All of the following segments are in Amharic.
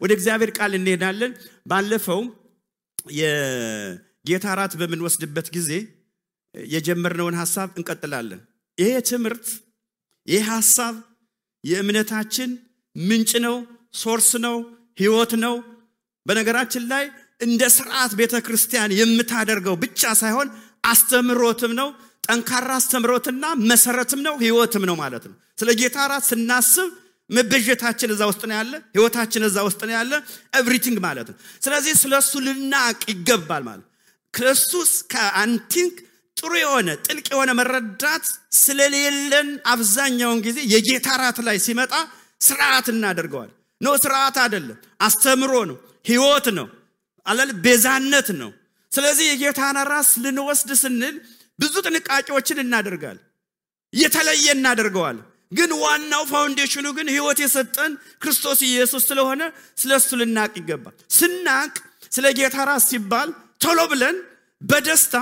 ወደ እግዚአብሔር ቃል እንሄዳለን ባለፈው የጌታ ራት በምንወስድበት ጊዜ የጀመርነውን ሐሳብ እንቀጥላለን ይሄ ትምህርት ይሄ ሐሳብ የእምነታችን ምንጭ ነው ሶርስ ነው ሕይወት ነው በነገራችን ላይ እንደ ሥርዓት ቤተክርስቲያን የምታደርገው ብቻ ሳይሆን አስተምሮትም ነው ጠንካራ አስተምሮትና መሰረትም ነው ሕይወትም ነው ማለት ነው ስለ ጌታ ራት ስናስብ መበጀታችን እዛ ውስጥ ነው ያለ ሕይወታችን እዛ ውስጥ ነው ያለ ኤቭሪቲንግ ማለት ነው ስለዚህ ስለሱ ልናቅ ይገባል ማለት ክርስቶስ ከአንቲንክ ጥሩ የሆነ ጥልቅ የሆነ መረዳት ስለሌለን አብዛኛውን ጊዜ የጌታ ራት ላይ ሲመጣ ሥርዓት እናደርገዋል ነው ሥርዓት አይደለም አስተምሮ ነው ሕይወት ነው አለል ቤዛነት ነው ስለዚህ የጌታን ራት ልንወስድ ስንል ብዙ ጥንቃቄዎችን እናደርጋለን የተለየ እናደርገዋለን ግን ዋናው ፋውንዴሽኑ ግን ሕይወት የሰጠን ክርስቶስ ኢየሱስ ስለሆነ ስለሱ ልናቅ ይገባል ስናቅ ስለ ጌታ ራት ሲባል ቶሎ ብለን በደስታ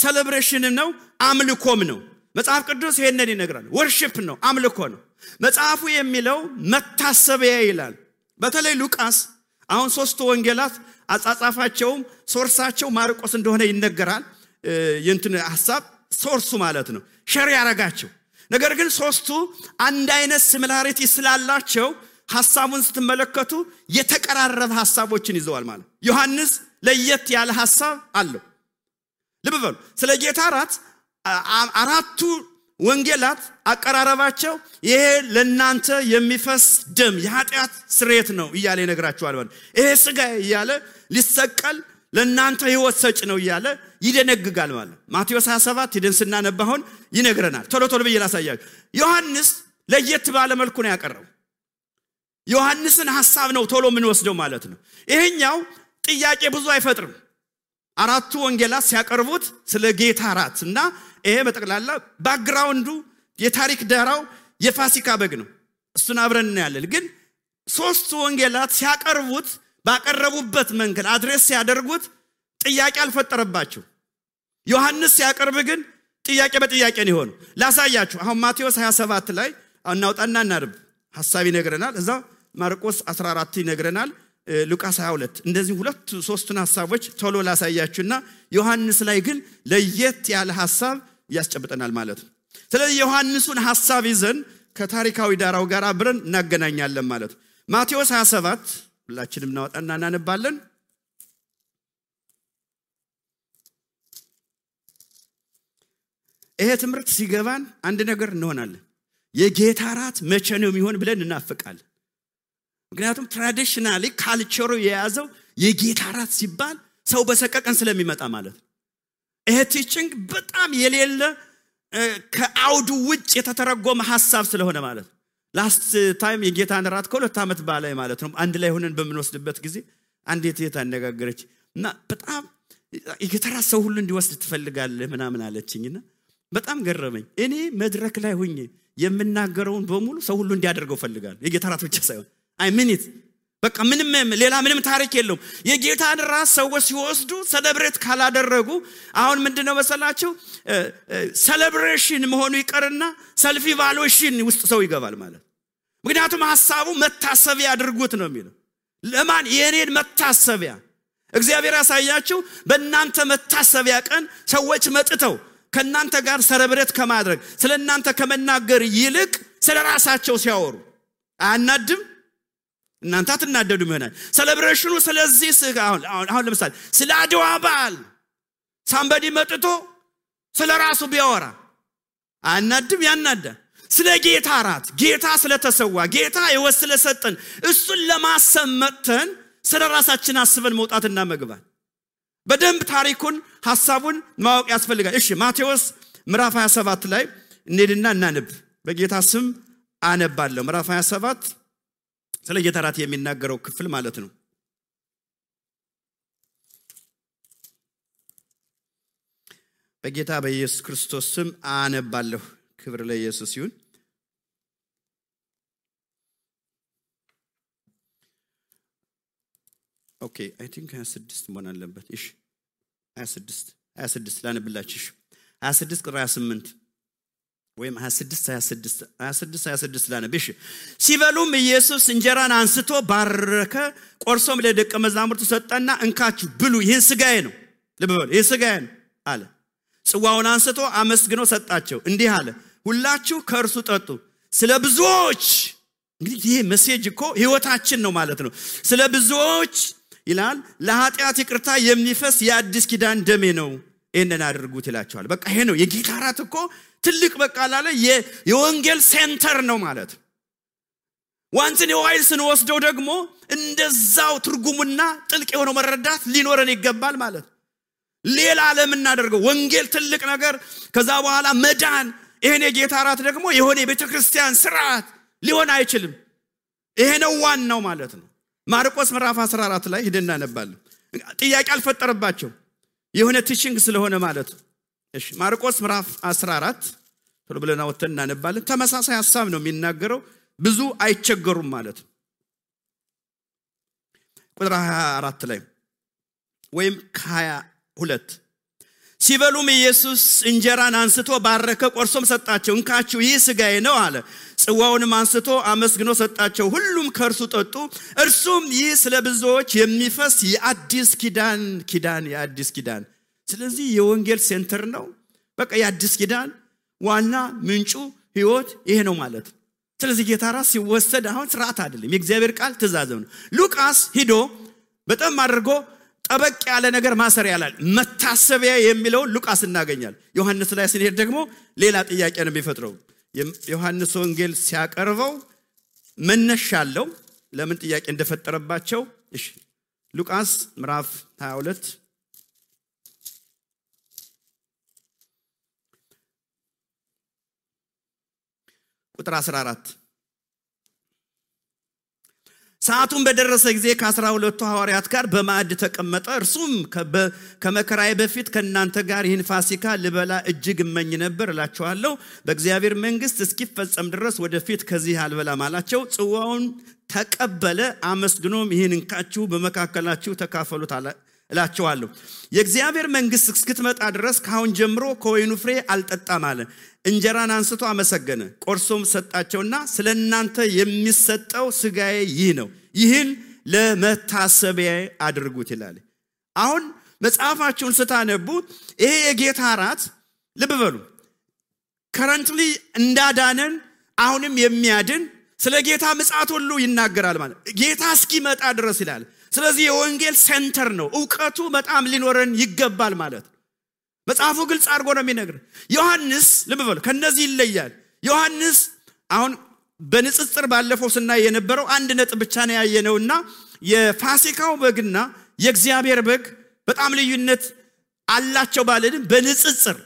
ሴሌብሬሽን ነው አምልኮም ነው መጽሐፍ ቅዱስ ይሄንን ይነግራል ወርሺፕ ነው አምልኮ ነው መጽሐፉ የሚለው መታሰቢያ ይላል በተለይ ሉቃስ አሁን ሶስቱ ወንጌላት አጻጻፋቸው ሶርሳቸው ማርቆስ እንደሆነ ይነገራል የእንትን ሐሳብ ሶርሱ ማለት ነው ሸር ያረጋቸው ነገር ግን ሶስቱ አንድ አይነት ሲሚላሪቲ ስላላቸው ሐሳቡን ስትመለከቱ የተቀራረበ ሐሳቦችን ይዘዋል ማለት ዮሐንስ ለየት ያለ ሐሳብ አለው ልብ በሉ ስለ ጌታ ራት አራቱ ወንጌላት አቀራረባቸው ይሄ ለናንተ የሚፈስ ደም የኃጢአት ስርየት ነው ይያለ ይነግራቸዋል ማለት ይሄ ሥጋ ይያለ ሊሰቀል ለናንተ ሕይወት ሰጭ ነው ይያለ ይደነግጋል ማለት ማቴዎስ 27 ሄደን ስናነባውን ይነግረናል ቶሎ ቶሎ በየላሳያችሁ ዮሐንስ ለየት ባለ መልኩ ነው ያቀረበው ዮሐንስን ሐሳብ ነው ቶሎ ምን ወስደው ማለት ነው ይሄኛው ጥያቄ ብዙ አይፈጥርም አራቱ ወንጌላት ሲያቀርቡት ስለ ጌታ ራትና ይሄ በጠቅላላ ባክግራውንዱ የታሪክ ዳራው የፋሲካ በግ ነው እሱን አብረን እናያለን ግን ሶስቱ ወንጌላት ሲያቀርቡት ባቀረቡበት መንገድ አድሬስ ሲያደርጉት ጥያቄ አልፈጠረባቸው ዮሐንስ ሲያቀርብ ግን ጥያቄ በጥያቄ ነው ሆኖ ላሳያችሁ አሁን ማቴዎስ 27 ላይ እናውጣና እናርብ ሐሳብ ይነግረናል እዛ ማርቆስ 14 ይነግረናል ሉቃስ 22 እንደዚህ ሁለት ሶስቱን ሐሳቦች ቶሎ ላሳያችሁና ዮሐንስ ላይ ግን ለየት ያለ ሐሳብ ያስጨብጠናል ማለት ነው ስለዚህ ዮሐንስን ሐሳብ ይዘን ከታሪካዊ ዳራው ጋር አብረን እናገናኛለን ማለት ነው ማቴዎስ 27 ሁላችንም እናወጣና እናነባለን ይሄ ትምህርት ሲገባን አንድ ነገር እንሆናለን የጌታ ራት መቼ ነው የሚሆን ብለን እናፍቃለን ምክንያቱም ትራዲሽናሊ ካልቸሩ የያዘው የጌታ ራት ሲባል ሰው በሰቀቀን ስለሚመጣ ማለት ነው ይሄ ቲቺንግ በጣም የሌለ ከአውዱ ውጭ የተተረጎመ ሐሳብ ስለሆነ ማለት ነው ላስት ታይም የጌታን ራት ከሁለት ዓመት በላይ ማለት ነው አንድ ላይ ሆነን በመንወስድበት ጊዜ አንዴት የታነጋገረች እና በጣም የጌታ ራት ሰው ሁሉ እንዲወስድ ትፈልጋለህ ምናምን አለችኝና በጣም ገረመኝ እኔ መድረክ ላይ ሆኜ የምናገረውን በሙሉ ሰው ሁሉ እንዲያደርገው ፈልጋለሁ የጌታ ራት ብቻ ሳይሆን አይ ሚኒት በቃ ምንም ታሪክ የለውም የጌታን ራት ሰዎች ሲወስዱ ሴሌብሬት ካላደረጉ አሁን ምንድነው መሰላችሁ ሴሌብሬሽን መሆኑ ይቀርና ሰልፍ ኢቫሉዌሽን ውስጥ ሰው ይገባል ማለት ምክንያቱም ሐሳቡ መታሰቢያ አድርጉት ነው የሚለው ለማን የኔን መታሰቢያ እግዚአብሔር ያሳያችሁ በእናንተ መታሰቢያ ቀን ሰዎች መጥተው ከናንተ ጋር ሴሌብሬት ከማድረግ ስለናንተ ከመናገር ይልቅ ስለራሳቸው ሲያወሩ አናድም እናንተ አትናደዱ ይሆናል ሴሌብሬሽኑ ስለዚህ አሁን ለምሳሌ ስለ አድዋ በዓል ሳምበዲ መጥቶ ስለራሱ ቢያወራ አናድም ያናዳ ስለ ጌታ ራት ጌታ ስለተሰዋ ጌታ ይወስለ ሰጠን እሱን ለማሰመተን ስለራሳችን አስበን መውጣትና መግባት በደንብ ታሪኩን ሐሳቡን ማወቅ ያስፈልጋል እሺ ማቴዎስ ምዕራፍ 27 ላይ እንሄድና እናንብ በጌታ ስም አነባለሁ ምዕራፍ 27 ስለ ጌታ ራት የሚናገረው ክፍል ማለት ነው በጌታ በኢየሱስ ክርስቶስ ስም አነባለሁ ክብር ለኢየሱስ ይሁን ኦኬ አይ ቲንክ 26 መሆን አለበት እሺ 26 ላነብላችሁ 26 ቁጥር 28 ወይም 26 ላነብሽ ሲበሉም ኢየሱስ እንጀራን አንስቶ ባረከ ቆርሶም ለደቀ መዛሙርቱ ሰጠና እንካችሁ ብሉ ይሄን ስጋዬ ነው ለበሉ ይሄ ስጋዬ ነው አለ ጽዋውን አንስቶ አመስግኖ ሰጣቸው እንዲህ አለ ሁላችሁ ከእርሱ ጠጡ ስለ ብዙዎች እንግዲህ ይሄ ሜሴጅ እኮ ህይወታችን ነው ማለት ነው ስለ ብዙዎች ይላል ለኃጢአት ይቅርታ የሚፈስ የአዲስ ኪዳን ደሜ ነው እነን አድርጉት ይላቸዋል በቃ ይሄ ነው የጌታ ራት እኮ ትልቅ በቃ አለ የወንጌል ሴንተር ነው ማለት ዋንስ ነው ዋይልስን ወስደው ደግሞ እንደዛው ትርጉሙና ጥልቅ የሆነ መረዳት ሊኖረን ይገባል ማለት ሌላ ዓለም እናደርገው ወንጌል ትልቅ ነገር ከዛ በኋላ መዳን ይሄን የጌታ ራት ደግሞ የሆነ የቤተክርስቲያን ስርዓት ሊሆን አይችልም ይሄ ነው ዋናው ማለት ነው ማርቆስ ምዕራፍ 14 ላይ ሄደና ነባለን ጥያቄ አልፈጠረባቸው የሆነ ቲቺንግ ስለሆነ ማለት እሺ ማርቆስ ምዕራፍ 14 ቶሎ ብለና ወተና ነባለን ተመሳሳይ ሐሳብ ነው የሚናገረው ብዙ አይቸገሩም ማለት ቁጥር 24 ላይ ወይም 22 ሲበሉም ኢየሱስ እንጀራን አንስቶ ባረከ ቆርሶም ሰጣቸው እንካችሁ ይህ ስጋዬ ነው አለ ጽዋውንም አንስቶ አመስግኖ ሰጣቸው ሁሉም ከእርሱ ጠጡ እርሱም ይህ ስለ ብዙዎች የሚፈስ የአዲስ ኪዳን የአዲስ ኪዳን ስለዚህ የወንጌል ሴንተር ነው በቃ የአዲስ ኪዳን ዋና ምንጩ ህይወት ይሄ ነው ማለት ስለዚህ ጌታ ራስ ሲወሰድ አሁን ስርዓት አይደለም የእግዚአብሔር ቃል ትእዛዝ ነው ሉቃስ ሂዶ በጣም አድርጎ ጠበቅ ያለ ነገር ማሰር ያላል መታሰቢያ የሚለው ሉቃስ እናገኛል ዮሐንስ ላይ ስንሄድ ደግሞ ሌላ ጥያቄ ነው የሚፈጥረው ዮሐንስ ወንጌል ሲያቀርበው መነሻለው ለምን ጥያቄ እንደፈጠረባቸው እሺ ሉቃስ ምዕራፍ 22 ቁጥር 14 ሰዓቱን በደረሰ ጊዜ ከ12 ሐዋርያት ጋር በማዕድ ተቀመጠ እርሱም ከመከራዬ በፊት ከናንተ ጋር ይህን ፋሲካ ልበላ እጅግ እመኝ ነበር እላችኋለሁ በእግዚአብሔር መንግስት እስኪፈጸም ድረስ ወደፊት ከዚህ አልበላም አላቸው ጽዋውን ተቀበለ አመስግኖም ይህን እንካችሁ በመካከላችሁ ተካፈሉት እላችኋለሁ የእግዚአብሔር መንግስት እስክትመጣ ድረስ ካሁን ጀምሮ ከወይኑ ፍሬ አልጠጣም አለ እንጀራን አንስቶ አመሰገነ ቆርሶም ሰጣቸውና ስለናንተ የሚሰጠው ስጋዬ ይህ ነው ይህን ለመታሰቢያ አድርጉት ይላል አሁን መጽሐፋችሁን ስታነቡ ይሄ የጌታ ራት ልብ በሉ ከረንትሊ እንዳዳነን አሁንም የሚያድን ስለ ጌታ ምጽአት ሁሉ ይናገራል ማለት ጌታ እስኪመጣ ድረስ ይላል ስለዚህ የወንጌል ሴንተር ነው ዕውቀቱ በጣም ሊኖረን ይገባል ማለት መጽሐፉ ግልጽ አድርጎ ነው የሚነግር ዮሐንስ ልብ በሉ ከነዚህ ይለያል ዮሐንስ አሁን በንጽጽር ባለፈው ስናይ የነበረው አንድ ነጥብ ብቻ ነው ያየነውና የፋሲካው በግና የእግዚአብሔር በግ በጣም ልዩነት አላቸው ባለንም በንጽጽር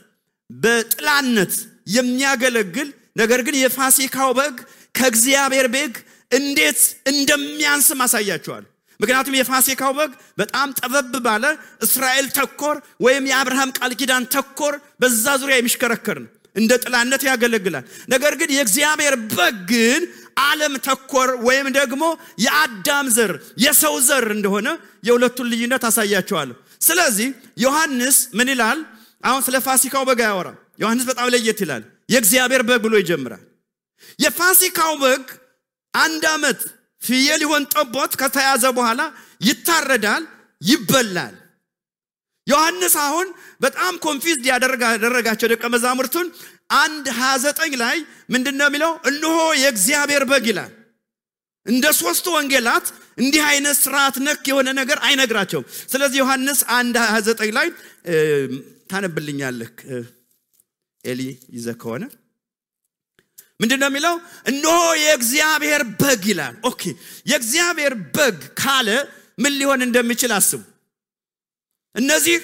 በጥላነት የሚያገለግል ነገር ግን የፋሲካው በግ ከእግዚአብሔር በግ እንዴት እንደሚያንስ ማሳያቸዋል ምክንያቱም የፋሲካው በግ በጣም ጠበብ ባለ እስራኤል ተኮር ወይም የአብርሃም ቃል ኪዳን ተኮር በዛ ዙሪያ የሚሽከረከር ነው እንደ ጥላነት ያገለግላል ነገር ግን የእግዚአብሔር በግ ግን ዓለም ተኮር ወይም ደግሞ የአዳም ዘር የሰው ዘር እንደሆነ የሁለቱን ልዩነት አሳያቸዋለሁ ስለዚህ ዮሐንስ ምን ይላል አሁን ስለ ፋሲካው በግ ያወራ ዮሐንስ በጣም ለየት ይላል የእግዚአብሔር በግ ብሎ ይጀምራል የፋሲካው በግ አንድ አመት ፍየል ይሆን ጠቦት ከተያዘ በኋላ ይታረዳል ይበላል ዮሐንስ አሁን በጣም ኮንፊውዝድ ያደረጋቸው ደቀ መዛሙርቱን 1:29 ላይ ምንድነው የሚለው እነሆ የእግዚአብሔር በግ ይላል እንደ ሶስቱ ወንጌላት እንዲህ አይነት ስርዓት ነክ የሆነ ነገር አይነግራቸውም ስለዚህ ዮሐንስ 1:29 ላይ ታነብልኛለህ ኤሊ ይዘከሆነ ምንድነው የሚለው እነሆ የእግዚአብሔር በግ ይላል ኦኬ የእግዚአብሔር በግ ካለ ምን ሊሆን እንደሚችል አስቡ እነዚህ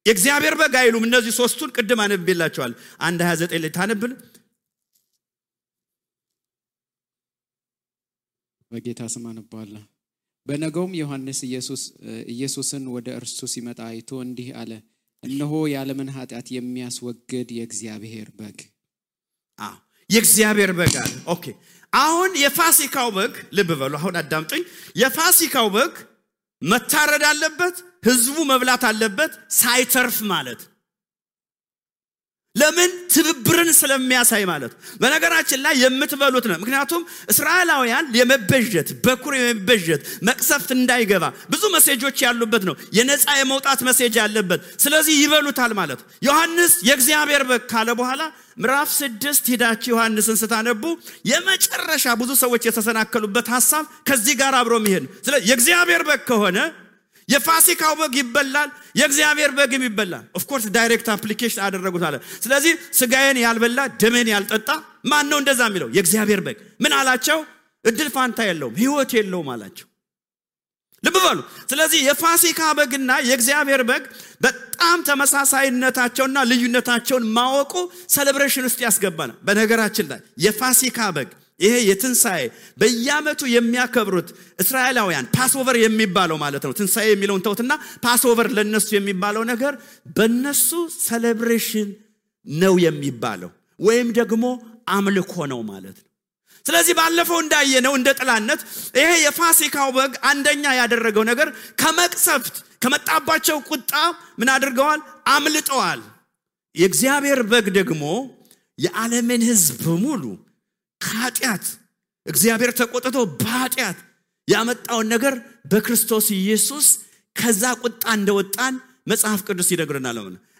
የእግዚአብሔር በግ አይሉም እነዚህ ሶስቱን ቅድም አነብላችኋል 1:29 ላይ ታነብል በጌታ ስም አነባለሁ በነገውም ዮሐንስ ኢየሱስን ወደ እርሱ ሲመጣ አይቶ እንዲህ አለ እነሆ የዓለምን ኃጢአት የሚያስወግድ የእግዚአብሔር በግ የእግዚአብሔር በግ አለ ኦኬ አሁን የፋሲካው በግ ልብ በሉ አሁን አዳምጡኝ የፋሲካው በግ መታረድ አለበት ህዝቡ መብላት አለበት ሳይተርፍ ማለት ለምን ትብብርን ስለሚያሳይ ማለት በነገራችን ላይ የምትበሉት ነው ምክንያቱም እስራኤላውያን የመበጀት በኩር የመበጀት መቅሰፍት እንዳይገባ ብዙ መሴጆች ያሉበት ነው የነፃ የመውጣት መሴጅ ያለበት ስለዚህ ይበሉታል ማለት ዮሐንስ የእግዚአብሔር በግ ካለ በኋላ ምዕራፍ 6 ሄዳችሁ ዮሐንስን ስታነቡ የመጨረሻ ብዙ ሰዎች የተሰናከሉበት ሐሳብ ከዚህ ጋር አብሮ መሄድ ስለዚህ የእግዚአብሔር በግ ከሆነ የፋሲካው በግ ይበላል የእግዚአብሔር በግም ይበላል ኦፍ ኮርስ ዳይሬክት አፕሊኬሽን አደረጉት አለ ስለዚህ ስጋዬን ያልበላ ደሜን ያልጠጣ ማን ነው እንደዛ የሚለው የእግዚአብሔር በግ ምን አላቸው እድል ፋንታ የለውም ህይወት የለውም አላቸው ልብ በሉ ስለዚህ የፋሲካ በግና የእግዚአብሔር በግ በጣም ተመሳሳይነታቸውና ልዩነታቸውን ማወቁ ሴሌብሬሽን ውስጥ ያስገባናል በነገራችን ላይ የፋሲካ በግ ይሄ የትንሳኤ በየዓመቱ የሚያከብሩት እስራኤላውያን ፓስኦቨር የሚባለው ማለት ነው ትንሳኤ የሚለውን ተውትና ፓስኦቨር ለነሱ የሚባለው ነገር በነሱ ሴሌብሬሽን ነው የሚባለው ወይም ደግሞ አምልኮ ነው ማለት ነው ስለዚህ ባለፈው እንዳየነው እንደ ጥላነት ይሄ የፋሲካው በግ አንደኛ ያደረገው ነገር ከመቅሰፍት ከመጣባቸው ቁጣ ምን አድርገዋል አምልጠዋል የእግዚአብሔር በግ ደግሞ የዓለምን ሕዝብ ሙሉ ኃጢአት እግዚአብሔር ተቆጥቶ በኃጢአት ያመጣው ነገር በክርስቶስ ኢየሱስ ከዛ ቁጣ እንደወጣን መጽሐፍ ቅዱስ ይነግረናል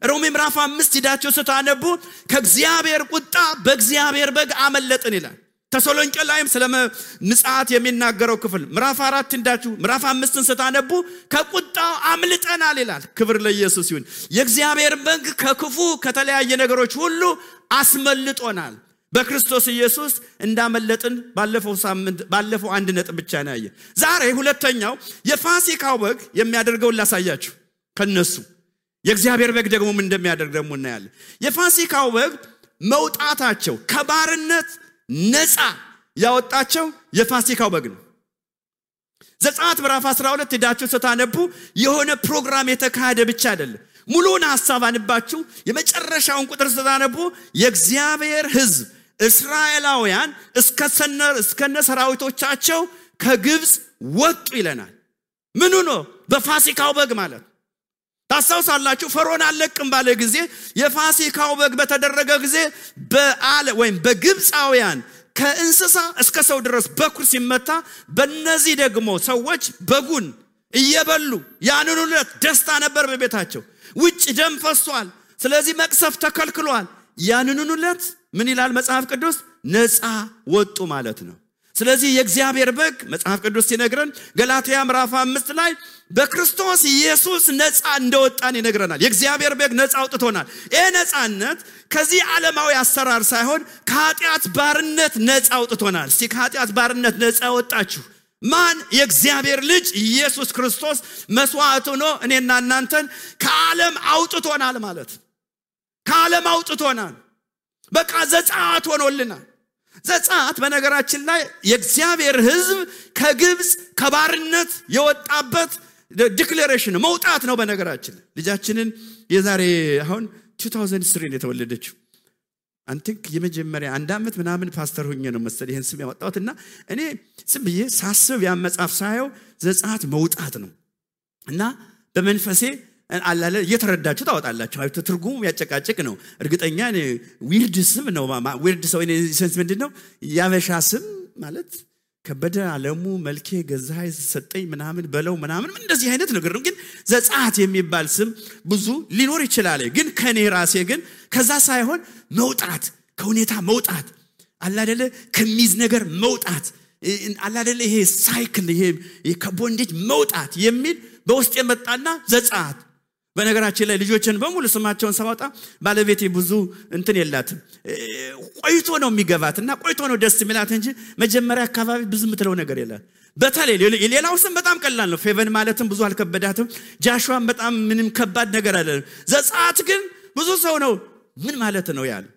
ሮሜ ምዕራፍ 5 ሄዳችሁ ስታነቡ ከእግዚአብሔር ቁጣ በእግዚአብሔር በግ አመለጥን ይላል ተሰሎንቄ ላይም ስለ ንጻት የሚናገረው ክፍል ምዕራፍ 4 እንዳችሁ ምዕራፍ 5ን ስታነቡ ከቁጣው አምልጠናል ይላል ክብር ለኢየሱስ ይሁን የእግዚአብሔር በግ ከክፉ ከተለያየ ነገሮች ሁሉ አስመልጦናል በክርስቶስ ኢየሱስ እንዳመለጥን ባለፈው አንድ ነጥብ ብቻ ነው ያየ ዛሬ ሁለተኛው የፋሲካው በግ የሚያደርገው ላሳያችሁ ከነሱ የእግዚአብሔር በግ ደግሞ ምን እንደሚያደርግ ደግሞ እናያለን የፋሲካው በግ መውጣታቸው ከባርነት ነፃ ያወጣቸው የፋሲካው በግ ነው ዘጸአት ምዕራፍ 12 ሄዳችሁ ስታነቡ የሆነ ፕሮግራም የተካሄደ ብቻ አይደለም ሙሉን ሐሳብ አንባችሁ የመጨረሻውን ቁጥር ስታነቡ የእግዚአብሔር ሕዝብ እስራኤላውያን እስከነ ሰራዊቶቻቸው ከግብጽ ወጡ ይለናል ምኑ ነው በፋሲካው በግ ማለት ታሳውሳላችሁ ፈርዖን አለቅም ባለ ጊዜ የፋሲካው በግ በተደረገ ጊዜ ወይም በግብጻውያን ከእንስሳ እስከ ሰው ድረስ በኩር ሲመታ በእነዚህ ደግሞ ሰዎች በጉን እየበሉ ያንኑ ዕለት ደስታ ነበር በቤታቸው ውጭ ደም ፈሷል ስለዚህ መቅሰፍ ተከልክሏል ያንኑ ዕለት ምን ይላል መጽሐፍ ቅዱስ ነፃ ወጡ ማለት ነው ስለዚህ የእግዚአብሔር በግ መጽሐፍ ቅዱስ ሲነግረን ገላትያ ምዕራፍ 5 ላይ በክርስቶስ ኢየሱስ ነፃ እንደወጣን ይነግረናል የእግዚአብሔር በግ ነፃ አውጥቶናል ይሄ ነፃነት ከዚህ ዓለማዊ አሰራር ሳይሆን ከኃጢአት ባርነት ነፃ አውጥቶናል እስቲ ከኃጢአት ባርነት ነፃ ወጣችሁ ማን የእግዚአብሔር ልጅ ኢየሱስ ክርስቶስ መስዋዕት ሆኖ እኔና እናንተን ከዓለም አውጥቶናል ማለት ከዓለም አውጥቶናል በቃ ዘጸአት ሆኖልናል ዘጸአት በነገራችን ላይ የእግዚአብሔር ሕዝብ ከግብጽ ከባርነት የወጣበት ዲክሌሬሽን መውጣት ነው በነገራችን ልጃችንን የዛሬ አሁን 2003 የተወለደችው አንቲክ የመጀመሪያ አንድ አመት ምናምን ፓስተር ሆኜ ነው መሰለኝ ይሄን ስም ያወጣሁትና እኔ ዝም ብዬ ሳስብ ያ መጽሐፍ ሳየው ዘጸአት መውጣት ነው እና በመንፈሴ አላለ እየተረዳችሁ ታወጣላችሁ አይቶ ትርጉሙ ያጨቃጨቅ ነው እርግጠኛ ዊርድ ስም ነው ዊርድ ሰው እኔ ሴንስ ምንድነው ያበሻ ስም ማለት ከበደ ዓለሙ መልኬ ገዛይ ሰጠኝ ምናምን በለው ምናምን እንደዚህ አይነት ነገር ነው ግን ዘጸአት የሚባል ስም ብዙ ሊኖር ይችላል ግን ከኔ ራሴ ግን ከዛ ሳይሆን መውጣት ከሁኔታ መውጣት አላደለ ከሚዝ ነገር መውጣት አላደለ ይሄ ሳይክል ይሄ ከቦንዴጅ መውጣት የሚል በውስጥ የመጣና ዘጸአት በነገራችን ላይ ልጆችን በሙሉ ስማቸውን ሰባጣ ባለቤቴ ብዙ እንትን የላትም ቆይቶ ነው የሚገባትና ቆይቶ ነው ደስ የሚላት እንጂ መጀመሪያ አካባቢ ብዙ ምትለው ነገር የለም በተለይ ሌላው ስም በጣም ቀላል ነው ፌቨን ማለትም ብዙ አልከበዳትም ጃሹዋም በጣም ምንም ከባድ ነገር አይደለም ዘጸአት ግን ብዙ ሰው ነው ምን ማለት ነው ያለ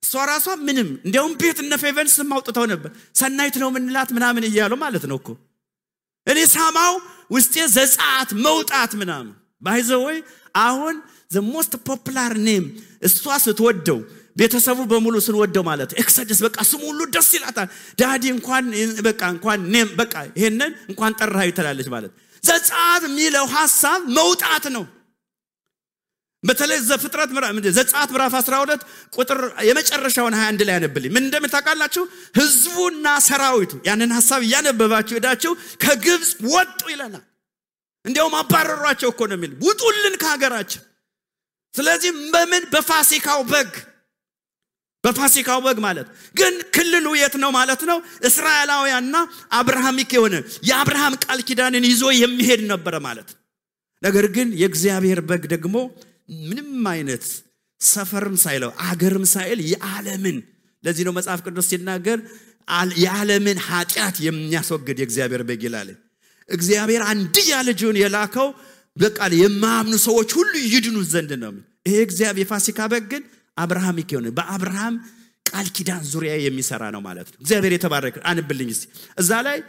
ሷራሷ ምንም እንዲያውም ቤት እነ ፌቨን ስም አውጥተው ነበር ሰናይት ነው ምንላት ምናምን ይያሉ ማለት ነው እኮ እኔ ሳማው ውስጤ ዘጸአት መውጣት ምናምን by the way አሁን the most popular name እሷ ስትወደው ቤተሰቡ በሙሉ ስንወደው ማለት ኤክሰደስ በቃ ስሙ ሁሉ ደስ ይላታል ዳዲ እንኳን ኔም በቃ ይሄንን እንኳን ጠራህ ይተላለች ማለት ዘጸአት የሚለው ሐሳብ መውጣት ነው በተለይ ዘጸአት ምዕራፍ 12 ቁጥር የመጨረሻውን 21 ላይ ያነብልኝ ምን እንደምታውቃላችሁ ህዝቡና ሰራዊቱ ያንን ሐሳብ ያነበባችሁ ሄዳችሁ ከግብጽ ወጡ ይላል እንዲያውም አባረሯቸው እኮ ነው የሚል ውጡልን ከሀገራችን ስለዚህ በምን በፋሲካው በግ ማለት ግን ክልሉ የት ነው ማለት ነው እስራኤላውያንና አብርሃሚክ የሆነ የአብርሃም ቃል ኪዳንን ይዞ የሚሄድ ነበር ማለት ነገር ግን የእግዚአብሔር በግ ደግሞ ምንም አይነት ሰፈርም ሳይለው አገርም ሳይል የዓለምን ለዚህ ነው መጽሐፍ ቅዱስ ሲናገር የዓለምን ኃጢአት የሚያስወግድ የእግዚአብሔር በግ ይላል እግዚአብሔር አንድያ ልጁን የላከው በቃል የማያምኑ ሰዎች ሁሉ ይድኑ ዘንድ ነው ይሄ እግዚአብሔር የፋሲካ በግ ግን አብርሃሚክ የሆነ በአብርሃም ቃል ኪዳን ዙሪያ የሚሰራ ነው ማለት ነው እግዚአብሔር የተባረከ አንብልኝ እስቲ እዛ ላይ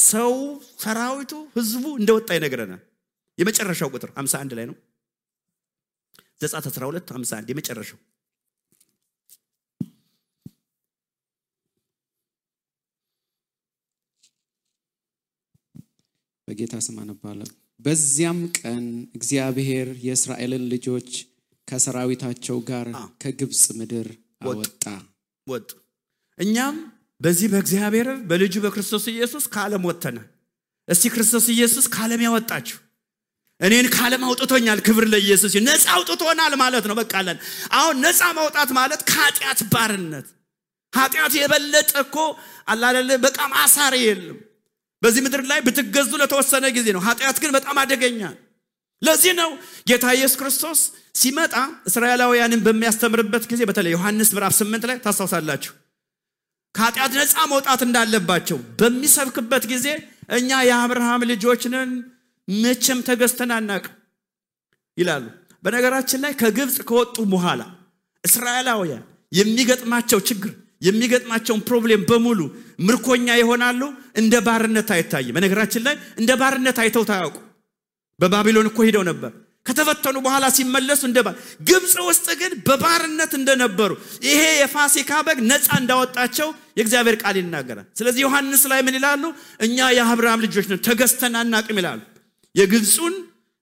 ሰው ሰራዊቱ ህዝቡ እንደወጣ ይነግረናል የመጨረሻው ቁጥር 51 ላይ ነው ዘጸአት 12 51 የመጨረሻው በጌታ ስም አነባለሁ በዚያም ቀን እግዚአብሔር የእስራኤልን ልጆች ከሰራዊታቸው ጋር ከግብጽ ምድር ወጡ እኛም በዚህ በእግዚአብሔር በልጁ በክርስቶስ ኢየሱስ ከዓለም ወጥተና እስቲ ክርስቶስ ኢየሱስ ከዓለም ያወጣችሁ እኔን ከዓለም አውጥቶኛል ክብር ለኢየሱስ ነፃ አውጥቶናል ማለት ነው በቃለን አሁን ነፃ ማውጣት ማለት ከኃጢአት ባርነት ኃጢአት የበለጠ እኮ አላለ በቃ ማሳሪ የለም በዚህ ምድር ላይ ብትገዙ ለተወሰነ ጊዜ ነው ኃጢአት ግን በጣም አደገኛ ለዚህ ነው ጌታ ኢየሱስ ክርስቶስ ሲመጣ እስራኤላውያንን በሚያስተምርበት ጊዜ በተለይ ዮሐንስ ምዕራፍ 8 ላይ ታስተውሳላችሁ ከኃጢአት ነፃ መውጣት እንዳለባቸው በሚሰብክበት ጊዜ እኛ የአብርሃም ልጆች ነን መቼም ተገዝተን አናውቅ ይላሉ በነገራችን ላይ ከግብጽ ከወጡ በኋላ እስራኤላውያን የሚገጥማቸው ችግር የሚገጥማቸው ፕሮብሌም በሙሉ ምርኮኛ ይሆናሉ እንደ ባርነት አይታይም በነገራችን ላይ እንደ ባርነት አይተው ታያውቁ በባቢሎን እኮ ሄደው ነበር ከተፈተኑ በኋላ ሲመለሱ ግብጽ ውስጥ ግን በባርነት እንደነበሩ ይሄ የፋሲካ በግ ነፃ እንዳወጣቸው የእግዚአብሔር ቃል ይናገራል ስለዚህ ዮሐንስ ላይ ምን ይላሉ እኛ የአብርሃም ልጆች ነን ተገዝተን አናውቅም ይላሉ የግብጹን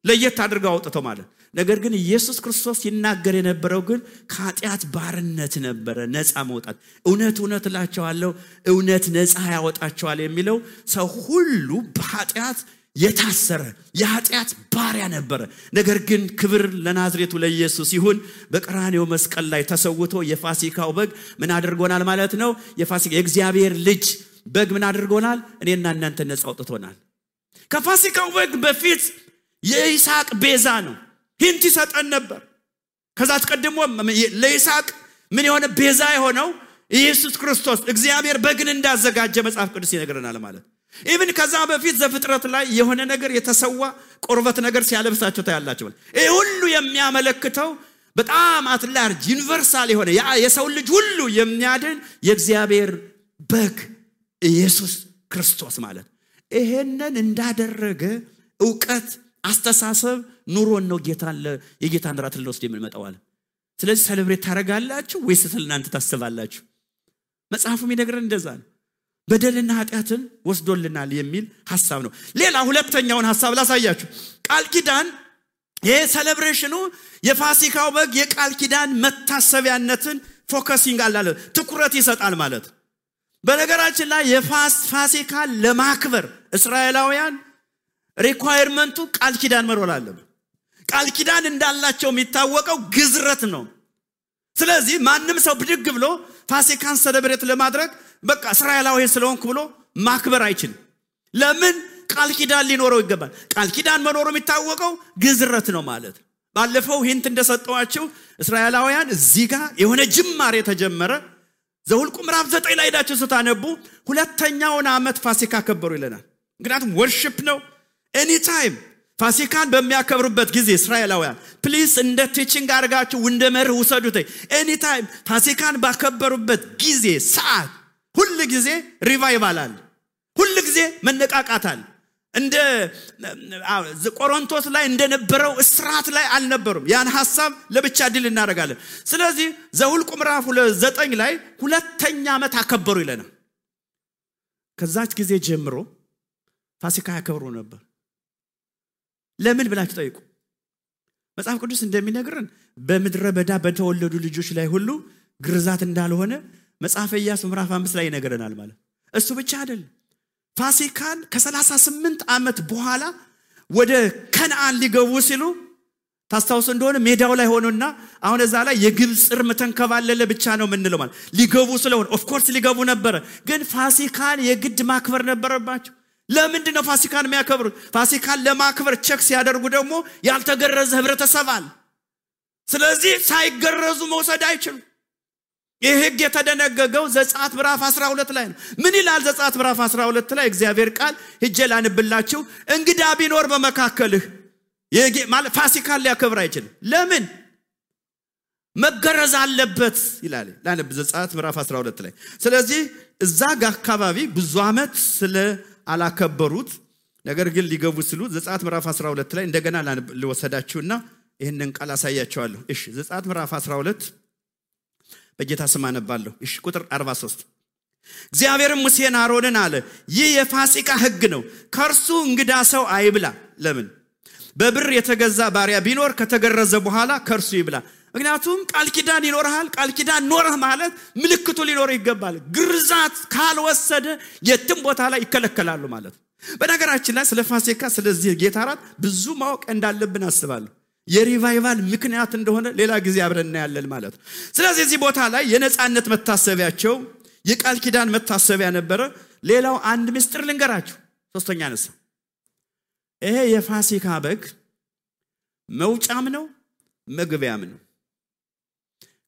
ለየት አድርገው አውጥተው ማለት ነገር ግን ኢየሱስ ክርስቶስ ይናገር የነበረው ግን ከኃጢአት ባርነት ነበር ነፃ መውጣት እውነት እላችኋለሁ እውነት ነፃ ያወጣቸዋል የሚለው ሰው ሁሉ በኃጢአት የታሰረ የኃጢአት ባሪያ ነበር ነገር ግን ክብር ለናዝሬቱ ለኢየሱስ ይሁን በቀራንዮ መስቀል ላይ ተሰውቶ የፋሲካው በግ ምን አድርጎናል ማለት ነው የፋሲካ የእግዚአብሔር ልጅ በግ ምን አድርጎናል እኔና እናንተ ነፃ አውጥቶናል ከፋሲካው በግ በፊት የይስሐቅ ቤዛ ነው ሂንት ይሰጠን ነበር ከዛ ተቀድሞ ለይስሐቅ ምን የሆነ ቤዛ የሆነው ኢየሱስ ክርስቶስ እግዚአብሔር በግን እንዳዘጋጀ መጽሐፍ ቅዱስ ይነግረናል ማለት ኢቭን ከዛ በፊት ዘፍጥረት ላይ የሆነ ነገር የተሰዋ ቁርበት ነገር ሲያለብሳቸው ታያላችሁ ይሄ ሁሉ የሚያመለክተው በጣም አትላርጅ ዩኒቨርሳል የሆነ የሰው ልጅ ሁሉ የሚያድን የእግዚአብሔር በግ ኢየሱስ ክርስቶስ ማለት ይሄንን እንዳደረገ ዕውቀት አስተሳሰብ ኑሮን ነው የጌታን ራት ለወስድ የምንመጣው አለ ስለዚህ ሴሌብሬት ታረጋላችሁ ወይስ ስለናንተ ታስባላችሁ መጽሐፉም ይነግረን እንደዛ ነው በደልና ኃጢአትን ወስዶልናል የሚል ሐሳብ ነው ሌላ ሁለተኛውን ሐሳብ ላሳያችሁ ቃል ኪዳን ይሄ ሴሌብሬሽኑ የፋሲካው በግ የቃል ኪዳን መታሰቢያነትን ፎከሲንግ አላለ ትኩረት ይሰጣል ማለት በነገራችን ላይ የፋሲካ ለማክበር እስራኤላውያን ሪኳየርመንቱ ቃል ኪዳን መሮል አለበት ቃል ኪዳን እንዳላቸው የሚታወቀው ግዝረት ነው ስለዚህ ማንም ሰው ብድግ ብሎ ፋሲካን ሴሌብሬት ለማድረግ በቃ እስራኤላዊ ስለሆንኩ ብሎ ማክበር አይችልም ለምን ቃል ኪዳን ሊኖረው ይገባል ቃል ኪዳን መኖሩ የሚታወቀው ግዝረት ነው ማለት ባለፈው ሂንት እንደሰጠዋቸው እስራኤላውያን እዚህ ጋር የሆነ ጅማሬ ተጀመረ ዘኍልቍ ምዕራፍ 9 ላይ ሄዳችሁ ስታነቡ ሁለተኛውን ዓመት ፋሲካ ከበሩ ይለናል ምክንያቱም ወርሺፕ ነው ኤኒ ታይም ፋሲካን በሚያከብሩበት ጊዜ እስራኤላውያን ፕሊዝ እንደ ቲቺንግ አድርጋችሁ እንደ መርህ ውሰዱት ኤኒ ታይም ፋሲካን ባከበሩበት ጊዜ ሰዓት ሁሉ ጊዜ ሪቫይቫል አለ ሁሉ ጊዜ መነቃቃት አለ እንደ ቆሮንቶስ ላይ እንደነበረው እስራት ላይ አልነበሩም ያን ሐሳብ ለብቻ ድል እናደርጋለን ስለዚህ ዘኍልቍ ምዕራፍ 9 ላይ ሁለተኛ ዓመት አከበሩ ይለናል ከዛች ጊዜ ጀምሮ ፋሲካ ያከብሩ ነበር ለምን ብላችሁ ጠይቁ መጽሐፍ ቅዱስ እንደሚነግረን በምድረ በዳ በተወለዱ ልጆች ላይ ሁሉ ግርዛት እንዳልሆነ መጽሐፈ ኢያሱ ምዕራፍ 5 ላይ ይነግረናል ማለት እሱ ብቻ አይደለም ፋሲካን ከ38 ዓመት በኋላ ወደ ከነዓን ሊገቡ ሲሉ ታስታውሱ እንደሆነ ሜዳው ላይ ሆኖና አሁን እዛ ላይ የግብጽ እርም ተንከባለለ ብቻ ነው ምንለው ማለት ሊገቡ ስለሆነ ኦፍ ኮርስ ሊገቡ ነበር ግን ፋሲካን የግድ ማክበር ነበረባቸው ለምንድን ነው ፋሲካን የሚያከብሩት ፋሲካን ለማክበር ቸክ ሲያደርጉ ደግሞ ያልተገረዘ ህብረተሰብ አለ ስለዚህ ሳይገረዙ መውሰድ አይችሉም ይህ ህግ የተደነገገው ዘጸአት ምዕራፍ 12 ላይ ነው ምን ይላል ዘጸአት ምዕራፍ 12 ላይ እግዚአብሔር ቃል ሂጄ ላንብላችሁ እንግዳ ቢኖር በመካከልህ ማለት ፋሲካን ሊያከብር አይችልም ለምን መገረዝ አለበት ይላል ላንብ ዘጸአት ምዕራፍ 12 ላይ ስለዚህ እዛ ጋር አካባቢ ብዙ አመት ስለ አላከበሩት ነገር ግን ሊገቡ ሲሉ ዘጸአት ምዕራፍ 12 ላይ እንደገና ልወሰዳችሁና ይሄንን ቃል አሳያችኋለሁ እሺ ዘጸአት ምዕራፍ 12 በጌታ ስም አነባለሁ እሺ ቁጥር 43 እግዚአብሔርም ሙሴን አሮንን አለ ይህ የፋሲካ ህግ ነው ከርሱ እንግዳ ሰው አይብላ ለምን በብር የተገዛ ባሪያ ቢኖር ከተገረዘ በኋላ ከርሱ ይብላ ምክንያቱም ቃል ኪዳን ይኖርሃል ቃል ኪዳን ኖርህ ማለት ምልክቱ ሊኖር ይገባል ግርዛት ካልወሰደ የትም ቦታ ላይ ይከለከላሉ ማለት በነገራችን ላይ ስለ ፋሲካ ስለዚህ ጌታ ራት ብዙ ማወቅ እንዳለብን አስባለሁ የሪቫይቫል ምክንያት እንደሆነ ሌላ ጊዜ አብረን ያለን ማለት ስለዚህ እዚህ ቦታ ላይ የነጻነት መታሰቢያቸው የቃል ኪዳን መታሰቢያ ነበረ ሌላው አንድ ምስጢር ልንገራችሁ ሶስተኛ ነሳ ይሄ የፋሲካ በግ መውጫም ነው መግቢያም ነው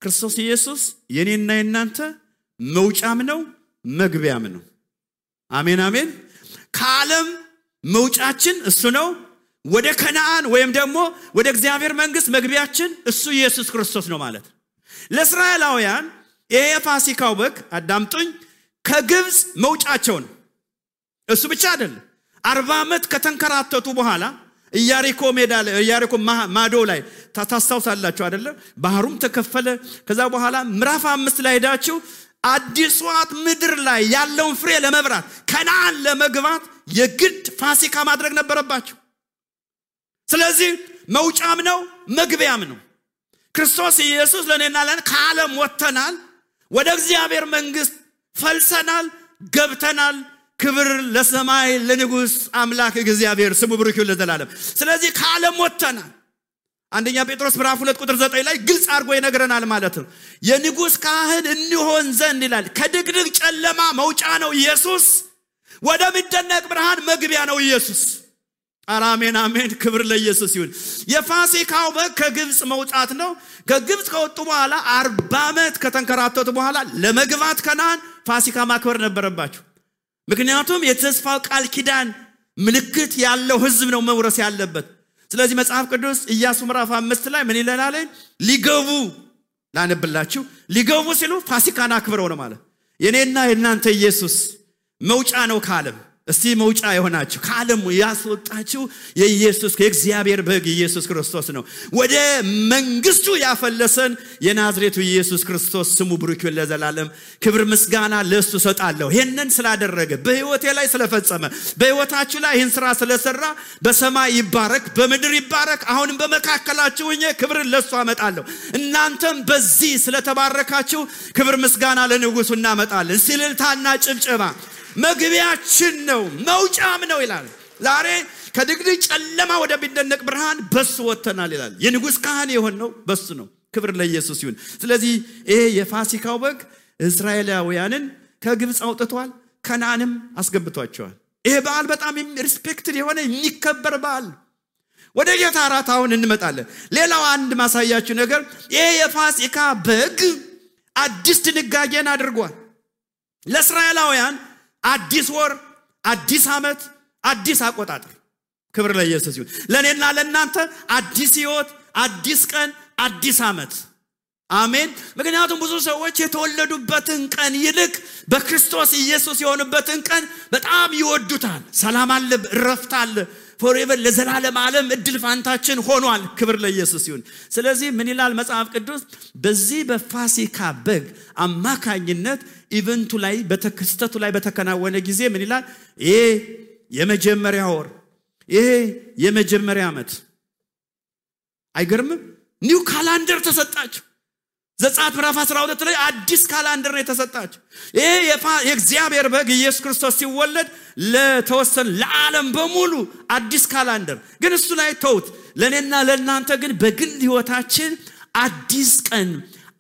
ክርስቶስ ኢየሱስ የኔና የናንተ መውጫም ነው መግቢያም ነው አሜን አሜን ከዓለም መውጫችን እሱ ነው ወደ ከነዓን ወይም ደግሞ ወደ እግዚአብሔር መንግስት መግቢያችን እሱ ኢየሱስ ክርስቶስ ነው ማለት ለእስራኤላውያን ይሄ የፋሲካው በግ አዳምጡኝ ከግብጽ መውጫቸው ነው እሱ ብቻ አይደለም 40 ዓመት ከተንከራተቱ በኋላ ኢያሪኮ ሜዳ ላይ ኢያሪኮ ማዶ ላይ ታስታውሳላችሁ አይደለ ባህሩም ተከፈለ ከዛ በኋላ ምዕራፍ 5 ላይ ሄዳችሁ አዲስዋት ምድር ላይ ያለውን ፍሬ ለመብራት ከነዓን ለመግባት የግድ ፋሲካ ማድረግ ነበረባቸው ስለዚህ መውጫም ነው መግቢያም ነው ክርስቶስ ኢየሱስ ለኔና ለኔ ከዓለም ወጥተናል ወደ እግዚአብሔር መንግስት ፈልሰናል ገብተናል ክብር ለሰማይ ለንጉስ አምላክ እግዚአብሔር ስሙ ብሩክ ይሁን ለዘላለም ስለዚህ ከዓለም ወጥተናል አንደኛ ጴጥሮስ ምዕራፍ 2 ቁጥር 9 ላይ ግልጽ አድርጎ ይነግረናል ማለት ነው የንጉስ ካህን እንሆን ዘንድ ይላል ከድቅድቅ ጨለማ መውጫ ነው ኢየሱስ ወደ ሚደነቅ ብርሃን መግቢያ ነው ኢየሱስ አሜን አሜን ክብር ለኢየሱስ ይሁን የፋሲካው በግ ከግብጽ መውጣት ነው ከግብጽ ከወጡ በኋላ 40 ዓመት ከተንከራተቱ በኋላ ለመግባት ከነዓን ፋሲካ ማክበር ነበረባቸው ምክንያቱም የተስፋው ቃል ኪዳን ምልክት ያለው ህዝብ ነው መውረስ ያለበት ስለዚህ መጽሐፍ ቅዱስ ኢያሱ ምዕራፍ 5 ላይ ምን ይላል ሊገቡ ላነብላችሁ ሊገቡ ሲሉ ፋሲካን አክብረው ነው ማለት የኔና የናንተ ኢየሱስ መውጫ ነው ከዓለም እስቲ መውጫ የሆናችሁ ከዓለም ያስወጣችሁ የኢየሱስ ከእግዚአብሔር በግ ኢየሱስ ክርስቶስ ነው ወደ መንግስቱ ያፈለሰን የናዝሬቱ ኢየሱስ ክርስቶስ ስሙ ብሩክ ይሁን ለዘላለም ክብር ምስጋና ለሱ ሰጣለሁ ይሄንን ስላደረገ በህይወቴ ላይ ስለፈጸመ በህይወታችሁ ላይ ይህን ስራ ስለሰራ በሰማይ ይባረክ በምድር ይባረክ አሁንም በመካከላችሁ ሆኜ ክብር ለሱ አመጣለሁ እናንተም በዚህ ስለተባረካችሁ ክብር ምስጋና ለንጉሱ እናመጣለን ሲልልታና ጭብጨባ መግቢያችን ነው መውጫም ነው ይላል ዛሬ ከድቅድቅ ጨለማ ወደ ሚደነቅ ብርሃን በሱ ወጥተናል ይላል የንጉስ ካህን የሆነው በሱ ነው ክብር ለኢየሱስ ይሁን ስለዚህ ይሄ የፋሲካው በግ እስራኤላውያንን ከግብጽ አውጥቷል ከነዓንም አስገብቷቸዋል ይሄ በዓል በጣም ሪስፔክትድ የሆነ የሚከበር በዓል ወደ ጌታ ራት አሁን እንመጣለን ሌላው አንድ ማሳያችሁ ነገር ይሄ የፋሲካ በግ አዲስ ድንጋጌን አድርጓል ለእስራኤላውያን አዲስ ወር አዲስ አመት አዲስ አቆጣጠር ክብር ለኢየሱስ ይሁን ለኔና ለናንተ አዲስ ህይወት አዲስ ቀን አዲስ አመት አሜን ምክንያቱም ብዙ ሰዎች የተወለዱበትን ቀን ይልቅ በክርስቶስ ኢየሱስ የሆኑበትን ቀን በጣም ይወዱታል ሰላም አለ ረፍት አለ forever ለዘላለም ዓለም እድል ፋንታችን ሆኗል ክብር ለኢየሱስ ይሁን ስለዚህ ምን ይላል መጽሐፍ ቅዱስ በዚህ በፋሲካ በግ አማካኝነት ኢቨንቱ ላይ በተከስተቱ ላይ በተከናወነ ጊዜ ምን ይላል ይሄ የመጀመሪያ ወር ይሄ የመጀመሪያ አመት አይገርምም? ኒው ካላንደር ተሰጣቸው። ዘጸአት ምዕራፍ 12 ላይ አዲስ ካላንደር ነው የተሰጣቸው። ይሄ የእግዚአብሔር በግ ኢየሱስ ክርስቶስ ሲወለድ ለተወሰነ ለዓለም በሙሉ አዲስ ካላንደር ግን እሱ ላይ ተውት። ለኔና ለናንተ ግን በግል ህይወታችን አዲስ ቀን፣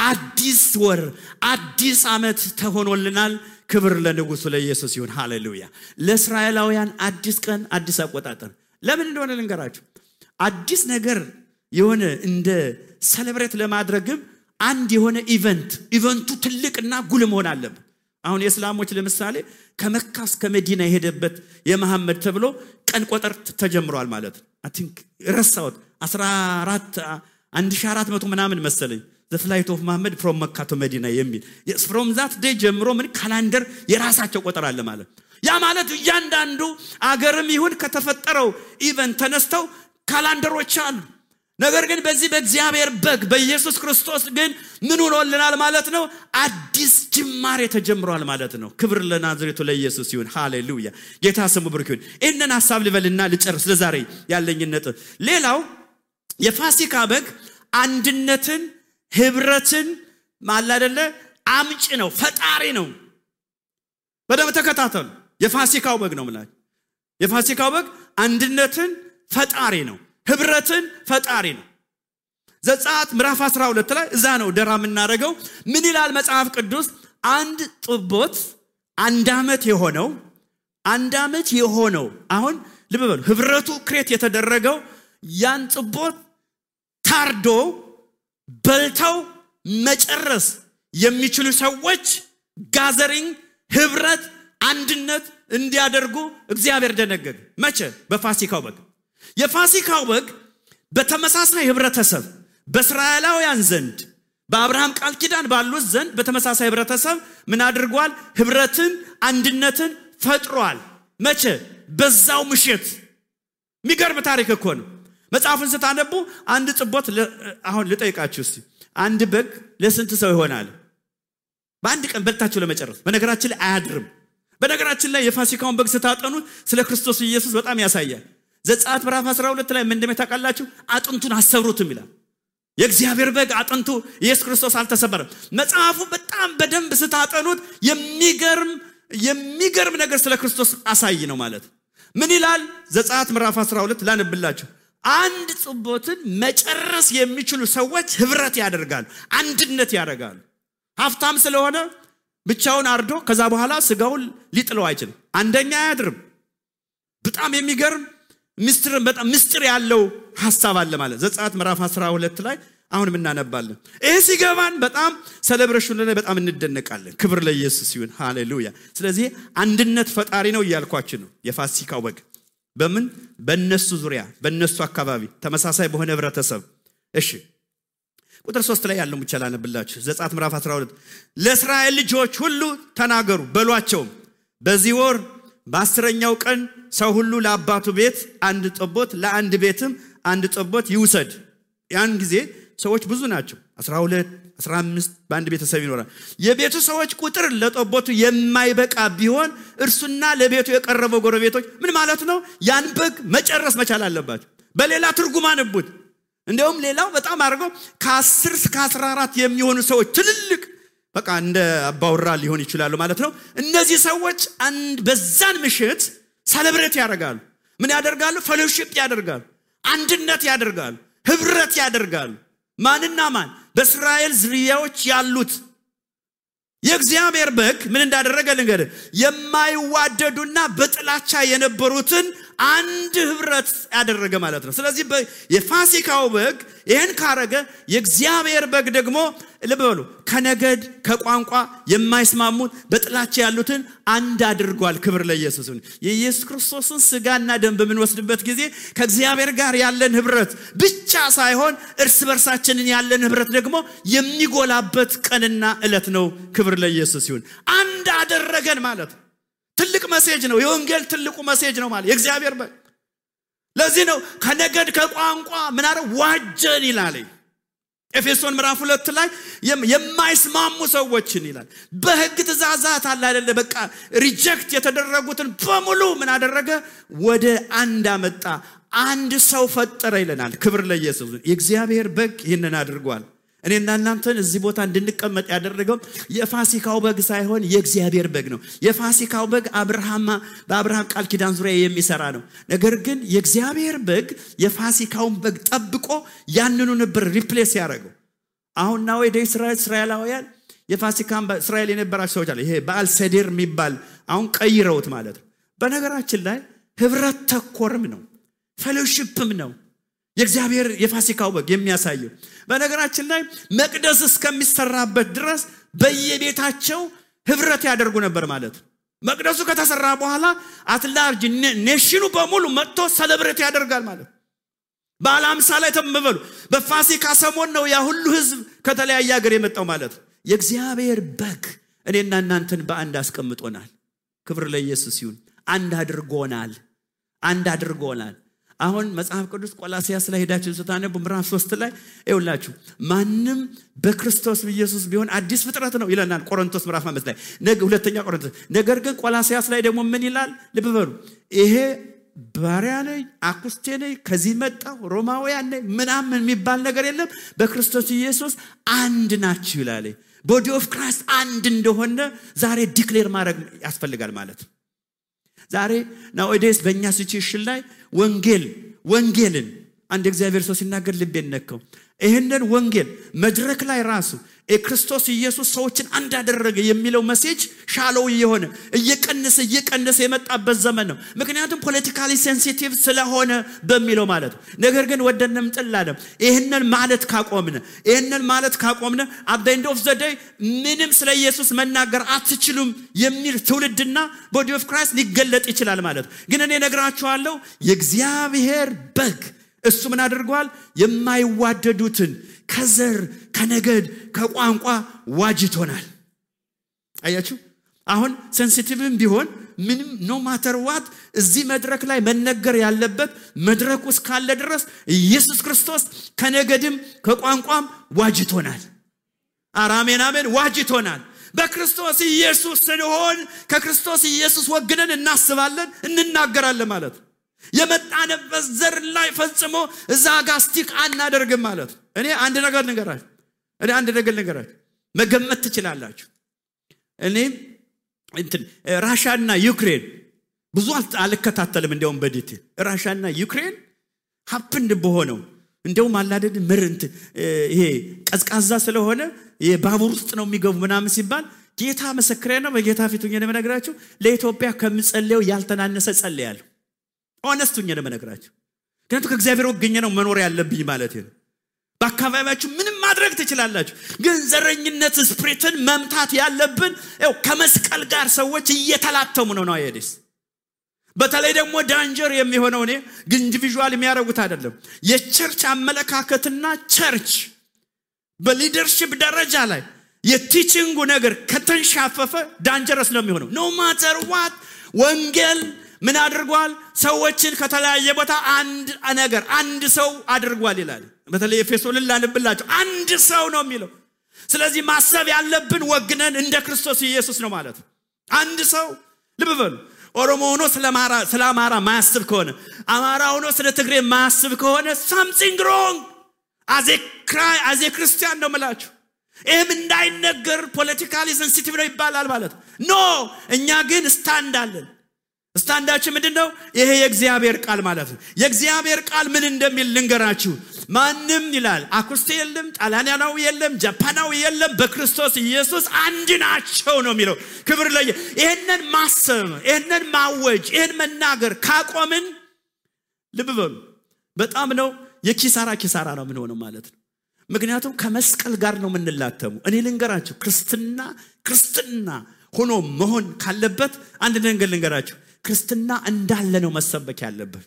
አዲስ ወር፣ አዲስ ዓመት ተሆኖልናል። ክብር ለንጉሱ ለኢየሱስ ይሁን። ሃሌሉያ። ለእስራኤላውያን አዲስ ቀን፣ አዲስ አቆጣጠር ለምን እንደሆነ ልንገራችሁ። አዲስ ነገር የሆነ እንደ ሴሌብሬት ለማድረግም አንድ የሆነ ኢቨንቱ ትልቅና ጉልህ መሆን አለበት። አሁን የእስላሞች ለምሳሌ ከመካ እስከ መዲና የሄደበት የመሐመድ ተብሎ ቀን ቆጠር ተጀምሯል ማለት ነው። አይ ቲንክ ረሳሁት 1400 ምናምን መሰለኝ the flight of Muhammad from Mecca to Medina የሚል from that day ጀምሮ ምን ካላንደር የራሳቸው ቆጠር አለ ማለት። ያ ማለት እያንዳንዱ አገርም ይሁን ከተፈጠረው ኢቨንት ተነስተው ካላንደሮች አሉ። ነገር ግን በዚህ በእግዚአብሔር በግ በኢየሱስ ክርስቶስ ግን ምን ሆኖልናል ማለት ነው? አዲስ ጅማሬ ተጀምሯል ማለት ነው። ክብር ለናዝሬቱ ለኢየሱስ ይሁን። ሃሌሉያ። ጌታ ስሙ ብሩክ ይሁን። እነን ሐሳብ ልበልና ልጨርስ ለዛሬ ያለኝን ነጥብ። ሌላው የፋሲካ በግ አንድነትን ህብረትን ማላደለ አምጪ ነው፣ ፈጣሪ ነው። በደም ተከታተሉ። የፋሲካው በግ ነው ማለት የፋሲካው በግ አንድነትን ፈጣሪ ነው፣ ህብረትን ፈጣሪ ነው። ዘጸአት ምዕራፍ 12 ላይ እዛ ነው ደራ የምናደርገው። ምን ይላል መጽሐፍ ቅዱስ? አንድ ጥቦት አንድ ዓመት የሆነው አሁን ልብ በሉ፣ ህብረቱ ክሬት የተደረገው ያን ጥቦት ታርዶ በልተው መጨረስ የሚችሉ ሰዎች ጋዘሪንግ ህብረት አንድነት እንዲያደርጉ እግዚአብሔር ደነገገ። መቼ? በፋሲካው በግ። የፋሲካው በግ በተመሳሳይ ህብረተሰብ በእስራኤላውያን ዘንድ በአብርሃም ቃል ኪዳን ባሉት ዘንድ በተመሳሳይ ህብረተሰብ ምን አድርጓል? ህብረትን አንድነትን ፈጥሯል። መቼ? በዛው ምሽት። የሚገርም ታሪክ እኮ ነው። መጽሐፉን ስታነቡ አንድ ጥቦት አሁን ልጠይቃችሁ እስቲ፣ አንድ በግ ለስንት ሰው ይሆናል? በአንድ ቀን በልታችሁ ለመጨረስ። በነገራችን ላይ አያድርም። በነገራችን ላይ የፋሲካውን በግ ስታጠኑ ስለ ክርስቶስ ኢየሱስ በጣም ያሳያል። ዘጸአት ምዕራፍ 12 ላይ ምን እንደሚታቃላችሁ? አጥንቱን አሰብሩትም ይላል። የእግዚአብሔር በግ አጥንቱ ኢየሱስ ክርስቶስ አልተሰበረም። መጽሐፉ በጣም በደንብ ስታጠኑት የሚገርም ነገር ስለ ክርስቶስ አሳይ ነው ማለት። ምን ይላል? ዘጸአት ምዕራፍ 12 ላነብላችሁ። አንድ ጥቦትን መጨረስ የሚችሉ ሰዎች ህብረት ያደርጋሉ፣ አንድነት ያደርጋሉ። ሀብታም ስለሆነ ብቻውን አርዶ ከዛ በኋላ ስጋውን ሊጥለው አይችልም። አንደኛ አያድርም። በጣም የሚገርም ምስጢር ያለው ሐሳብ አለ ማለት። ዘጸአት ምዕራፍ 12 ላይ አሁንም እናነባለን። ይሄ ሲገባን በጣም ሴሌብሬሽን ላይ በጣም እንደነቃለን። ክብር ለኢየሱስ ይሁን። ሃሌሉያ። ስለዚህ አንድነት ፈጣሪ ነው እያልኳችሁ ነው። የፋሲካው በግ በምን? በእነሱ ዙሪያ በእነሱ አካባቢ ተመሳሳይ በሆነ ህብረተሰብ። እሺ ቁጥር 3 ላይ ያለው ብቻ ላነብላችሁ። ዘጸአት ምዕራፍ 12 ለእስራኤል ልጆች ሁሉ ተናገሩ በሏቸው፣ በዚህ ወር በ10ኛው ቀን ሰው ሁሉ ለአባቱ ቤት አንድ ጠቦት ለአንድ ቤትም አንድ ጠቦት ይውሰድ። ያን ጊዜ ሰዎች ብዙ ናቸው፣ 12 15 በአንድ ቤተሰብ ይኖራል። የቤቱ ሰዎች ቁጥር ለጠቦቱ የማይበቃ ቢሆን እርሱና ለቤቱ የቀረበው ጎረቤቶች ምን ማለት ነው? ያን በግ መጨረስ መቻል አለባቸው። በሌላ ትርጉም አንቡት። እንደውም ሌላው በጣም አድርገው ከ10 እስከ 14 የሚሆኑ ሰዎች ትልልቅ በቃ እንደ አባውራ ሊሆን ይችላሉ ማለት ነው። እነዚህ ሰዎች በዛን ምሽት ሴሌብሬት ያደርጋሉ። ምን ያደርጋሉ? ፌሎሺፕ ያደርጋሉ፣ አንድነት ያደርጋሉ፣ ህብረት ያደርጋሉ። ማንና ማን? በእስራኤል ዝርያዎች ያሉት። የእግዚአብሔር በግ ምን እንዳደረገ ልንገርህ። የማይዋደዱና በጥላቻ የነበሩትን አንድ ህብረት ያደረገ ማለት ነው። ስለዚህ የፋሲካው በግ ይሄን ካረገ የእግዚአብሔር በግ ደግሞ ልብ በሉ ከነገድ ከቋንቋ የማይስማሙት በጥላቻ ያሉትን አንድ አድርጓል። ክብር ለኢየሱስ ይሁን። የኢየሱስ ክርስቶስን ስጋና ደም በምንወስድበት ጊዜ ከእግዚአብሔር ጋር ያለን ህብረት ብቻ ሳይሆን እርስ በርሳችንን ያለን ህብረት ደግሞ የሚጎላበት ቀንና ዕለት ነው። ክብር ለኢየሱስ ይሁን። አንድ አደረገን ማለት ትልቅ ሜሴጅ ነው። የወንጌል ትልቁ ሜሴጅ ነው ማለት የእግዚአብሔር በግ። ለዚህ ነው ከነገድ ከቋንቋ ምን አረ ዋጀን ይላል። ኤፌሶን ምዕራፍ 2 ላይ የማይስማሙ ሰዎችን ይላል። በህግ ትእዛዛት አለ አይደለ? በቃ ሪጀክት የተደረጉትን በሙሉ ምን አደረገ? ወደ አንድ አመጣ። አንድ ሰው ፈጠረ ይለናል። ክብር ለኢየሱስ። የእግዚአብሔር በግ ይህንን አድርጓል። እኔና እናንተን እዚህ ቦታ እንድንቀመጥ ያደረገው የፋሲካው በግ ሳይሆን የእግዚአብሔር በግ ነው። የፋሲካው በግ በአብርሃም ቃል ኪዳን ዙሪያ የሚሰራ ነው። ነገር ግን የእግዚአብሔር በግ የፋሲካውን በግ ጠብቆ ያንኑ ነበር ሪፕሌስ ያደረገው። አሁን ነው ወደ እስራኤላውያን የፋሲካን እስራኤል የነበራቸው ሰዎች አለ። ይሄ በዓል ሰዴር የሚባል አሁን ቀይረውት ማለት ነው። በነገራችን ላይ ህብረት ተኮርም ነው፣ ፌሎሺፕም ነው የእግዚአብሔር የፋሲካው በግ የሚያሳየው። በነገራችን ላይ መቅደስ እስከሚሰራበት ድረስ በየቤታቸው ህብረት ያደርጉ ነበር ማለት ነው። መቅደሱ ከተሰራ በኋላ አትላርጅ ኔሽኑ በሙሉ መጥቶ ሰለብሬት ያደርጋል ማለት ነው። በዓለ ሃምሳ ላይ ተመበሉ በፋሲካ ሰሞን ነው ያ ሁሉ ህዝብ ከተለያየ ሀገር የመጣው ማለት ነው። የእግዚአብሔር በግ እኔና እናንተን በአንድ አስቀምጦናል። ክብር ለኢየሱስ ይሁን። አንድ አድርጎናል። አሁን መጽሐፍ ቅዱስ ቆላስይስ ላይ ሄዳችሁ ስታነቡ ምዕራፍ 3 ላይ ይውላችሁ ማንም በክርስቶስ ኢየሱስ ቢሆን አዲስ ፍጥረት ነው ይለናል። ቆሮንቶስ ምዕራፍ 5 ላይ ሁለተኛ ቆሮንቶስ። ነገር ግን ቆላስይስ ላይ ደግሞ ምን ይላል ልብ በሉ። ይሄ ባሪያ ነኝ አኩስቴ ነኝ ከዚህ መጣው ሮማውያን ነኝ ምናምን የሚባል ነገር የለም። በክርስቶስ ኢየሱስ አንድ ናችሁ ይላል። ቦዲ ኦፍ ክራይስት አንድ እንደሆነ ዛሬ ዲክሌር ማድረግ ያስፈልጋል ማለት ነው። ዛሬ nowadays በእኛ ሲቹዌሽን ላይ ወንጌልን አንድ እግዚአብሔር ሰው ሲናገር ልቤን ነካው። ይሄንን ወንጌል መድረክ ላይ ራሱ ክርስቶስ ኢየሱስ ሰዎችን አንድ አደረገ የሚለው ሜሴጅ ሻሎው እየቀነሰ የመጣበት ዘመን ነው። ምክንያቱም ፖለቲካሊ ሴንሲቲቭ ስለሆነ በሚለው ማለት ነው። ነገር ግን ወደንም ጥላለም ይሄንን ማለት ካቆምነ at the end of the day ምንም ስለ ኢየሱስ መናገር አትችሉም የሚል ትውልድና ቦዲ ኦፍ ክራይስት ሊገለጥ ይችላል ማለት ነው። ግን እኔ ነግራችኋለሁ የእግዚአብሔር በግ እሱ ምን አድርጓል? የማይዋደዱትን ከዘር ከነገድ ከቋንቋ ዋጅቶናል። አያችሁ አሁን ሴንሲቲቭም ቢሆን ምንም ኖ ማተር ዋት እዚህ መድረክ ላይ መነገር ያለበት መድረክ ውስጥ ካለ ድረስ ኢየሱስ ክርስቶስ ከነገድም ከቋንቋም ዋጅቶናል። አሜን ዋጅቶናል። በክርስቶስ ኢየሱስ ስንሆን ከክርስቶስ ኢየሱስ ወግነን እናስባለን እንናገራለን ማለት ነው። የመጣንበት ዘር ላይ ፈጽሞ እዛ ጋር ስቲክ አናደርግም ማለት ነው። እኔ አንድ ነገር ልንገራችሁ መገመት ትችላላችሁ። እኔ ራሻና ዩክሬን ብዙ አልከታተልም እንደውም በዲቴል ራሻና ዩክሬን ሀፕንድ በሆነው እንደውም አላደድ ምርንት ይሄ ቀዝቃዛ ስለሆነ የባቡር ውስጥ ነው የሚገቡ ምናምን ሲባል ጌታ መሰክሬ ነው በጌታ ፊት ሆኜ ለመነግራችሁ ለኢትዮጵያ ከምጸልየው ያልተናነሰ ጸልያለሁ። ሆነስቱኝ ለመነግራችሁ ከንቱ ከእግዚአብሔር ወገኘ ነው መኖር ያለብኝ ማለት ነው። በአካባቢያችሁ ምንም ማድረግ ትችላላችሁ። ግን ዘረኝነት ስፕሪትን መምታት ያለብን ከመስቀል ጋር ሰዎች እየተላተሙ ነው አይደስ። በተለይ ደግሞ ዳንጀር የሚሆነው እኔ ግን ኢንዲቪጁዋል የሚያረጉት አይደለም። የቸርች አመለካከትና ቸርች በሊደርሺፕ ደረጃ ላይ የቲቺንጉ ነገር ከተንሻፈፈ ዳንጀረስ ነው የሚሆነው። ኖ ማተር ዋት ወንጌል ምን አድርጓል? ሰዎችን ከተለያየ ቦታ አንድ ሰው አድርጓል ይላል። በተለይ ኤፌሶን ላንብላችሁ አንድ ሰው ነው የሚለው። ስለዚህ ማሰብ ያለብን ወግነን እንደ ክርስቶስ ኢየሱስ ነው ማለት ነው። አንድ ሰው ልብ በሉ። ኦሮሞ ሆኖ ስለ አማራ ማያስብ ከሆነ አማራ ሆኖ ስለ ትግሬ ማያስብ ከሆነ something wrong as a ክርስቲያን ነው ማለት። ይሄም እንዳይነገር ፖለቲካሊ ሴንሲቲቭ ነው ይባላል ማለት ኖ። እኛ ግን ስታንዳችን ምንድነው? ይሄ የእግዚአብሔር ቃል ማለት ነው። የእግዚአብሔር ቃል ምን እንደሚል ልንገራችሁ። ማንም ይላል አኩስቴ የለም ጣሊያናዊ የለም ጃፓናዊ የለም በክርስቶስ ኢየሱስ አንድ ናቸው ነው የሚለው። ክብር ለየ ይሄንን ማሰብ ይሄንን ማወጅ ይሄን መናገር ካቆምን ልብ በሉ በጣም ነው የኪሳራ ነው ምን ሆነው ማለት ነው። ምክንያቱም ከመስቀል ጋር ነው ምንላተሙ። እኔ ልንገራችሁ ክርስትና ሆኖ መሆን ካለበት አንድ ነገር ልንገራችሁ። ክርስትና እንዳለ ነው መሰበክ ያለበት።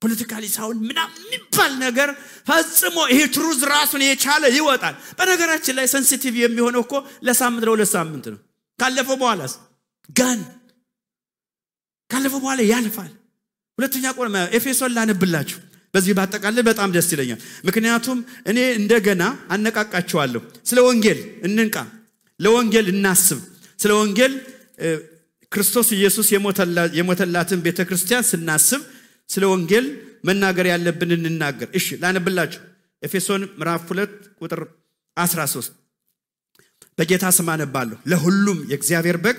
ፖለቲካሊ ሳይሆን ምናምን የሚባል ነገር ፈጽሞ ይሄ ትሩዝ ራሱን የቻለ ይወጣል። በነገራችን ላይ ሴንሲቲቭ የሚሆነው እኮ ለሁለት ሳምንት ነው። ካለፈው በኋላ ያልፋል። ሁለተኛ ቆሮንቶስ ኤፌሶን ላነብላችሁ በዚህ ባጠቃላይ በጣም ደስ ይለኛል። ምክንያቱም እኔ እንደገና አነቃቃችኋለሁ። ስለ ወንጌል እንንቃ፣ ለወንጌል እናስብ። ስለ ወንጌል ክርስቶስ ኢየሱስ የሞተላትን ቤተክርስቲያን ስናስብ ስለ ወንጌል መናገር ያለብን እንናገር። እሺ ላነብላችሁ ኤፌሶን ምዕራፍ 2 ቁጥር 13 በጌታ ስም አነባለሁ። ለሁሉም የእግዚአብሔር በግ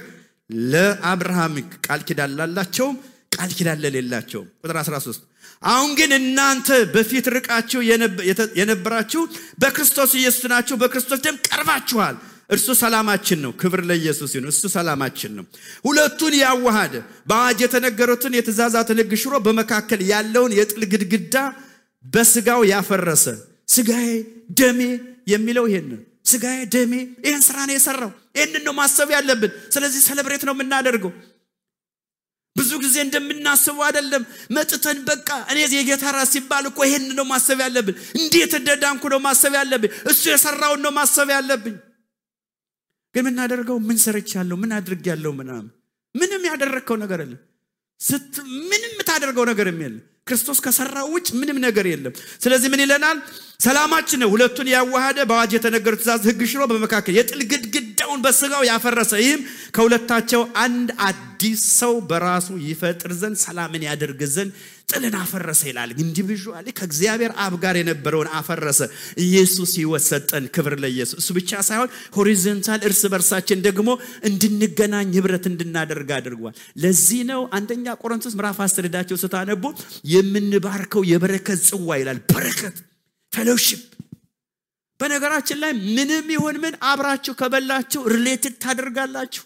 ለአብርሃም ቃል ኪዳን ላላቸው ቃል ኪዳን ለሌላቸው። ቁጥር 13 አሁን ግን እናንተ በፊት ርቃችሁ የነበራችሁ በክርስቶስ ኢየሱስ ናችሁ፣ በክርስቶስ ደም ቀርባችኋል። እርሱ ሰላማችን ነው። ክብር ለኢየሱስ ይሁን። እሱ ሰላማችን ነው። ሁለቱን ያዋሃደ በአዋጅ የተነገሩትን የትእዛዛትን ሕግ ሽሮ በመካከል ያለውን የጥል ግድግዳ በስጋው ያፈረሰ። ስጋዬ ደሜ የሚለው ይሄን ስጋዬ ደሜ ይሄን ስራ ነው የሰራው። ይሄንን ነው ማሰብ ያለብን። ስለዚህ ሴሌብሬት ነው የምናደርገው። ብዙ ጊዜ እንደምናስበው አይደለም። መጥተን በቃ እኔ የጌታ ራስ ሲባል እኮ ይሄንን ነው ማሰብ ያለብን። እንዴት እንደዳንኩ ነው ማሰብ ያለብን። እሱ የሰራውን ነው ማሰብ ያለብን። ግን ምን እናደርገው? ምን ሰርቻለሁ? ምን አድርጌያለሁ? ምንም ያደረከው ነገር የለም። ምንም ታደርገው ነገር የለም። ክርስቶስ ከሰራው ውጭ ምንም ነገር የለም። ስለዚህ ምን ይለናል? ሰላማችን ነው ሁለቱን ያዋሃደ በአዋጅ የተነገሩት ትእዛዝ ሕግ ሽሮ በመካከል የጥል ግድግዳውን በስጋው ያፈረሰ። ይህም ከሁለታቸው አንድ አዲስ ሰው በራሱ ይፈጥር ዘንድ ሰላምን ያደርግ ዘንድ ጥልን አፈረሰ ይላል። ኢንዲቪጁዋሊ ከእግዚአብሔር አብ ጋር የነበረውን አፈረሰ። ኢየሱስ ሕይወት ሰጠን። ክብር ለኢየሱስ። እሱ ብቻ ሳይሆን ሆሪዞንታል እርስ በርሳችን ደግሞ እንድንገናኝ ህብረት እንድናደርግ አድርጓል። ለዚህ ነው አንደኛ ቆሮንቶስ ምዕራፍ 10 ሄዳችሁ ስታነቡ የምንባርከው የበረከት ጽዋ ይላል። በረከት ፌሎሺፕ። በነገራችን ላይ ምንም ይሁን ምን አብራችሁ ከበላችሁ ሪሌትድ ታደርጋላችሁ።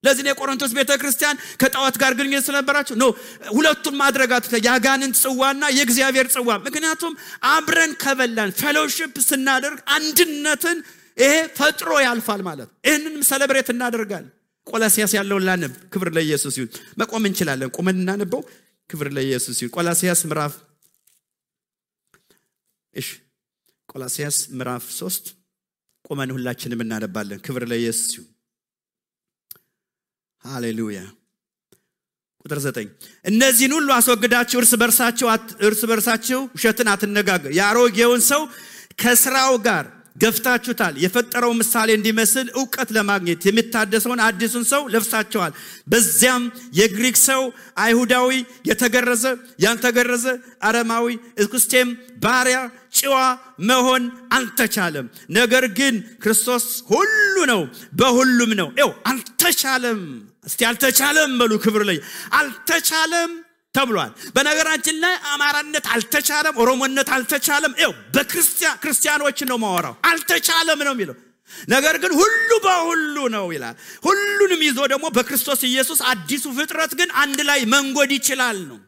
ለዚህ ነው ቆሮንቶስ ቤተክርስቲያን ከጣዖት ጋር ግንኙነት ስለነበራችሁ ነው ሁለቱን ማድረጋት ያጋንንት ጽዋና የእግዚአብሔር ጽዋ። ምክንያቱም አብረን ከበላን ፌሎሺፕ ስናደርግ አንድነትን ይሄ ፈጥሮ ያልፋል ማለት። ይሄንንም ሴሌብሬት እናደርጋለን። ቆላስይስ ያለውን ላንብ። ክብር ለኢየሱስ ይሁን። መቆም እንችላለን። ቆመን እናነበው። ክብር ለኢየሱስ ይሁን። ቆላስይስ ምዕራፍ 3 ቆመን ሁላችንም እናነባለን። ክብር ለኢየሱስ ይሁን። ሃሌሉያ። ቁጥር 9 እነዚህን ሁሉ አስወግዳችሁ እርስ በርሳችሁ ውሸትን አትነጋገሩ። ያሮጌውን ሰው ከስራው ጋር ገፍታችሁታል። የፈጠረው ምሳሌ እንዲመስል ዕውቀት ለማግኘት የሚታደሰውን አዲሱን ሰው ለብሳችኋል። በዚያም የግሪክ ሰው አይሁዳዊ፣ የተገረዘ ያልተገረዘ፣ አረማዊ፣ እስኩስቴም፣ ባሪያ፣ ጭዋ መሆን አልተቻለም። ነገር ግን ክርስቶስ ሁሉ ነው፣ በሁሉም ነው። አልተቻለም። እስቲ አልተቻለም በሉ። ክብር ላይ አልተቻለም ተብሏል። በነገራችን ላይ አማራነት አልተቻለም፣ ኦሮሞነት አልተቻለም። በክርስቲያኖች ነው ማወራው። አልተቻለም ነው የሚለው። ነገር ግን ሁሉ በሁሉ ነው ይላል። ሁሉንም ይዞ ደግሞ በክርስቶስ ኢየሱስ አዲሱ ፍጥረት ግን አንድ ላይ መንጎድ ይችላል ነው።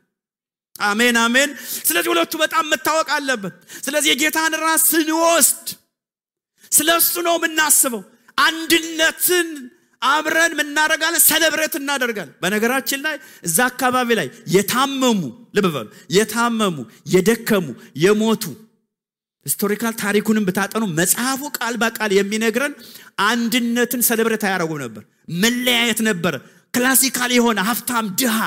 አሜን አሜን። ስለዚህ ሁለቱ በጣም መታወቅ አለበት። ስለዚህ የጌታን ራስ ስንወስድ ስለሱ ነው የምናስበው። አንድነትን አብረን ምናረጋለን፣ ሴሌብሬት እናደርጋለን። በነገራችን ላይ እዛ አካባቢ ላይ የታመሙ ልብ በሉ፣ የታመሙ የደከሙ የሞቱ ሂስቶሪካል ታሪኩንም ብታጠኑ መጽሐፉ ቃል በቃል የሚነግረን አንድነትን ሴሌብሬት ያደርጉ ነበር። መለያየት ነበር። ክላሲካል የሆነ ሀብታም ድሃ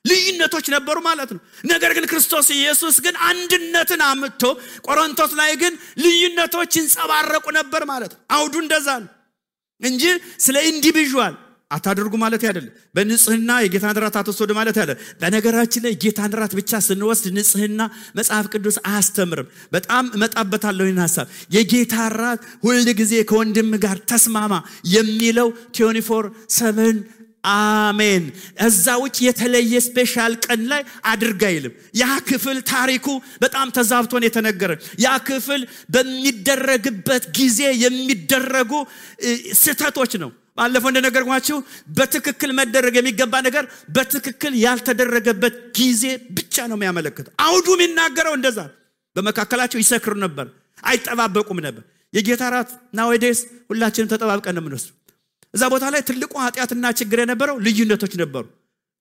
ልዩነቶች ነበሩ ማለት ነው። ነገር ግን ክርስቶስ ኢየሱስ ግን አንድነትን አምጥቶ ቆሮንቶስ ላይ ግን ልዩነቶች ይንጸባረቁ ነበር ማለት ነው። አውዱ እንደዛ ነው እንጂ ስለ ኢንዲቪጁዋል አታድርጉ ማለት አይደለም። በንጽህና የጌታን ራት አትወስዱ ማለት አይደለም። በነገራችን ላይ ጌታን ራት ብቻ ስንወስድ ንጽህና መጽሐፍ ቅዱስ አያስተምርም። በጣም መጣበታለሁ ይህን ሐሳብ። የጌታ ራት ሁሉ ጊዜ ከወንድም ጋር ተስማማ የሚለው 24/7 አሜን። እዛ ውጭ የተለየ ስፔሻል ቀን ላይ አድርጋ ይልም። ያ ክፍል ታሪኩ በጣም ተዛብቶን የተነገረ ያ ክፍል በሚደረግበት ጊዜ የሚደረጉ ስህተቶች ነው። ባለፈው እንደነገርኳችሁ በትክክል መደረግ የሚገባ ነገር በትክክል ያልተደረገበት ጊዜ ብቻ ነው የሚያመለክተው። አውዱ የሚናገረው እንደዛ። በመካከላቸው ይሰክሩ ነበር፣ አይጠባበቁም ነበር። የጌታ ራት ናውዴስ ሁላችንም ተጠባብቀን ነው የምንወስደው። እዛ ቦታ ላይ ትልቁ ኃጢአትና ችግር የነበረው ልዩነቶች ነበሩ።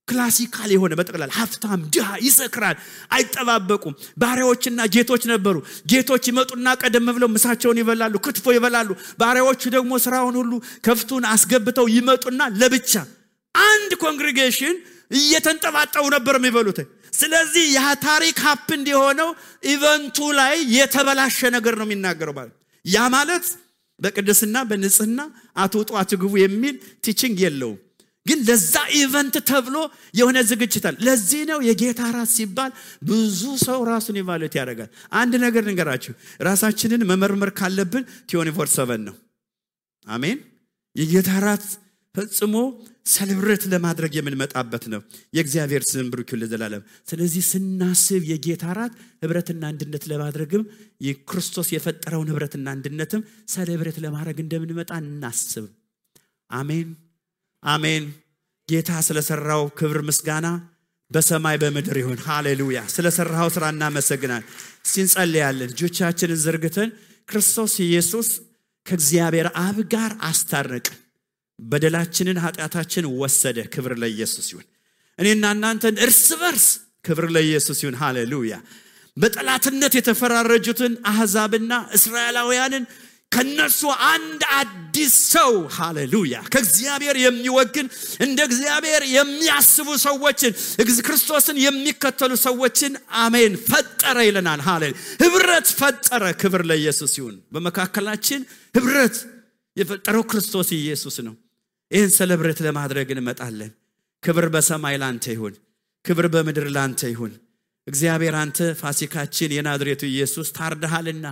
ክላሲካል የሆነ በጠቅላላ ሀብታም ድሃ ይሰክራል፣ አይጠባበቁም። ባሪያዎችና ጌቶች ነበሩ። ጌቶች ይመጡና ቀደም ብለው ምሳቸውን ይበላሉ፣ ክትፎ ይበላሉ። ባሪያዎቹ ደግሞ ስራውን ሁሉ ከፍቱን አስገብተው ይመጡና ለብቻ አንድ ኮንግሪጌሽን እየተንጠባጠቡ ነበር የሚበሉት። ስለዚህ ያ ታሪክ ሀፕንድ የሆነው ኢቨንቱ ላይ የተበላሸ ነገር ነው የሚናገረው ማለት። ያ ማለት በቅድስና በንጽህና አትውጡ አትግቡ የሚል ቲቺንግ የለውም። ግን ለዛ ኢቨንት ተብሎ የሆነ ዝግጅት አለ። ለዚህ ነው የጌታ ራት ሲባል ብዙ ሰው ራሱን ኢቫሉዌት ያደርጋል። አንድ ነገር ልንገራችሁ፣ ራሳችንን መመርመር ካለብን 24/7 ነው። አሜን። የጌታ ራት ፈጽሞ ሰለብሬት ለማድረግ የምንመጣበት ነው። የእግዚአብሔር ስም ብሩክ ይሁን ለዘላለም። ስለዚህ ስናስብ የጌታ ራት ህብረትና አንድነት ለማድረግም የክርስቶስ የፈጠረውን ህብረትና አንድነትም ሰለብሬት ለማድረግ እንደምንመጣ እናስብ። አሜን አሜን። ጌታ ስለሰራው ክብር ምስጋና በሰማይ በምድር ይሁን። ሃሌሉያ። ስለሰራው ስራ እናመሰግናለን። እንጸልያለን። እጆቻችንን ዘርግተን ክርስቶስ ኢየሱስ ከእግዚአብሔር አብ ጋር አስታረቀን፣ በደላችንን ኃጢአታችን ወሰደ። ክብር ለኢየሱስ ይሁን። እኔና እናንተን እርስ በርስ ክብር ለኢየሱስ ይሁን። ሃሌሉያ። በጠላትነት የተፈራረጁትን አሕዛብና እስራኤላውያንን ከነሱ አንድ አዲስ ሰው ሃሌሉያ ከእግዚአብሔር የሚወግን እንደ እግዚአብሔር የሚያስቡ ሰዎችን ክርስቶስን የሚከተሉ ሰዎችን አሜን ፈጠረ ይለናል። ሃሌሉያ ህብረት ፈጠረ። ክብር ለኢየሱስ ይሁን። በመካከላችን ህብረት የፈጠረው ክርስቶስ ኢየሱስ ነው። ይህን ሰለብሬት ለማድረግ እንመጣለን። ክብር በሰማይ ላንተ ይሁን፣ ክብር በምድር ላንተ ይሁን። እግዚአብሔር አንተ ፋሲካችን የናዝሬቱ ኢየሱስ ታርደሃልና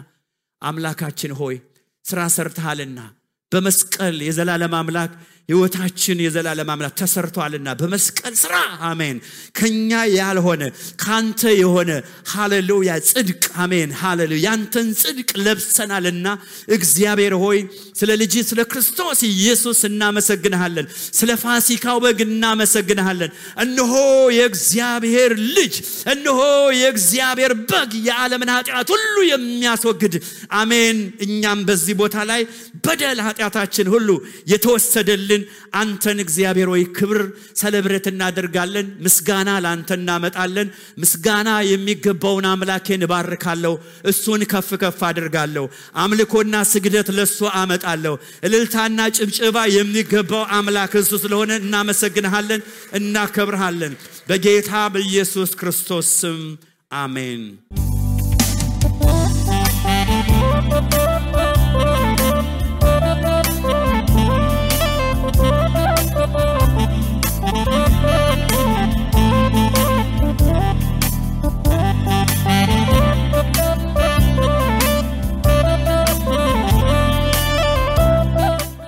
አምላካችን ሆይ ስራ ሰርተሃልና በመስቀል የዘላለም አምላክ ህይወታችን የዘላለም አምላክ ተሰርቷልና በመስቀል ስራ አሜን ከኛ ያልሆነ ካንተ የሆነ ሃሌሉያ ጽድቅ አሜን ሃሌሉያ ያንተን ጽድቅ ለብሰናልና እግዚአብሔር ሆይ ስለ ልጅ ስለ ክርስቶስ ኢየሱስ እናመሰግንሃለን። ስለ ፋሲካው በግ እናመሰግንሃለን። እነሆ የእግዚአብሔር ልጅ፣ እነሆ የእግዚአብሔር በግ የዓለምን ኃጢአት ሁሉ የሚያስወግድ አሜን። እኛም በዚህ ቦታ ላይ በደል ኃጢአታችን ሁሉ የተወሰደልን አንተን እግዚአብሔር ሆይ ክብር ሰለብሬት እናደርጋለን። ምስጋና ላንተ እናመጣለን። ምስጋና የሚገባውን አምላኬን ባርካለሁ፣ እሱን ከፍ ከፍ አደርጋለሁ። አምልኮና ስግደት ለሱ አመጣለሁ። እልልታና ጭብጨባ የሚገባው አምላክ እሱ ስለሆነ እናመሰግንሃለን፣ እናከብርሃለን። በጌታ በኢየሱስ ክርስቶስ ስም አሜን።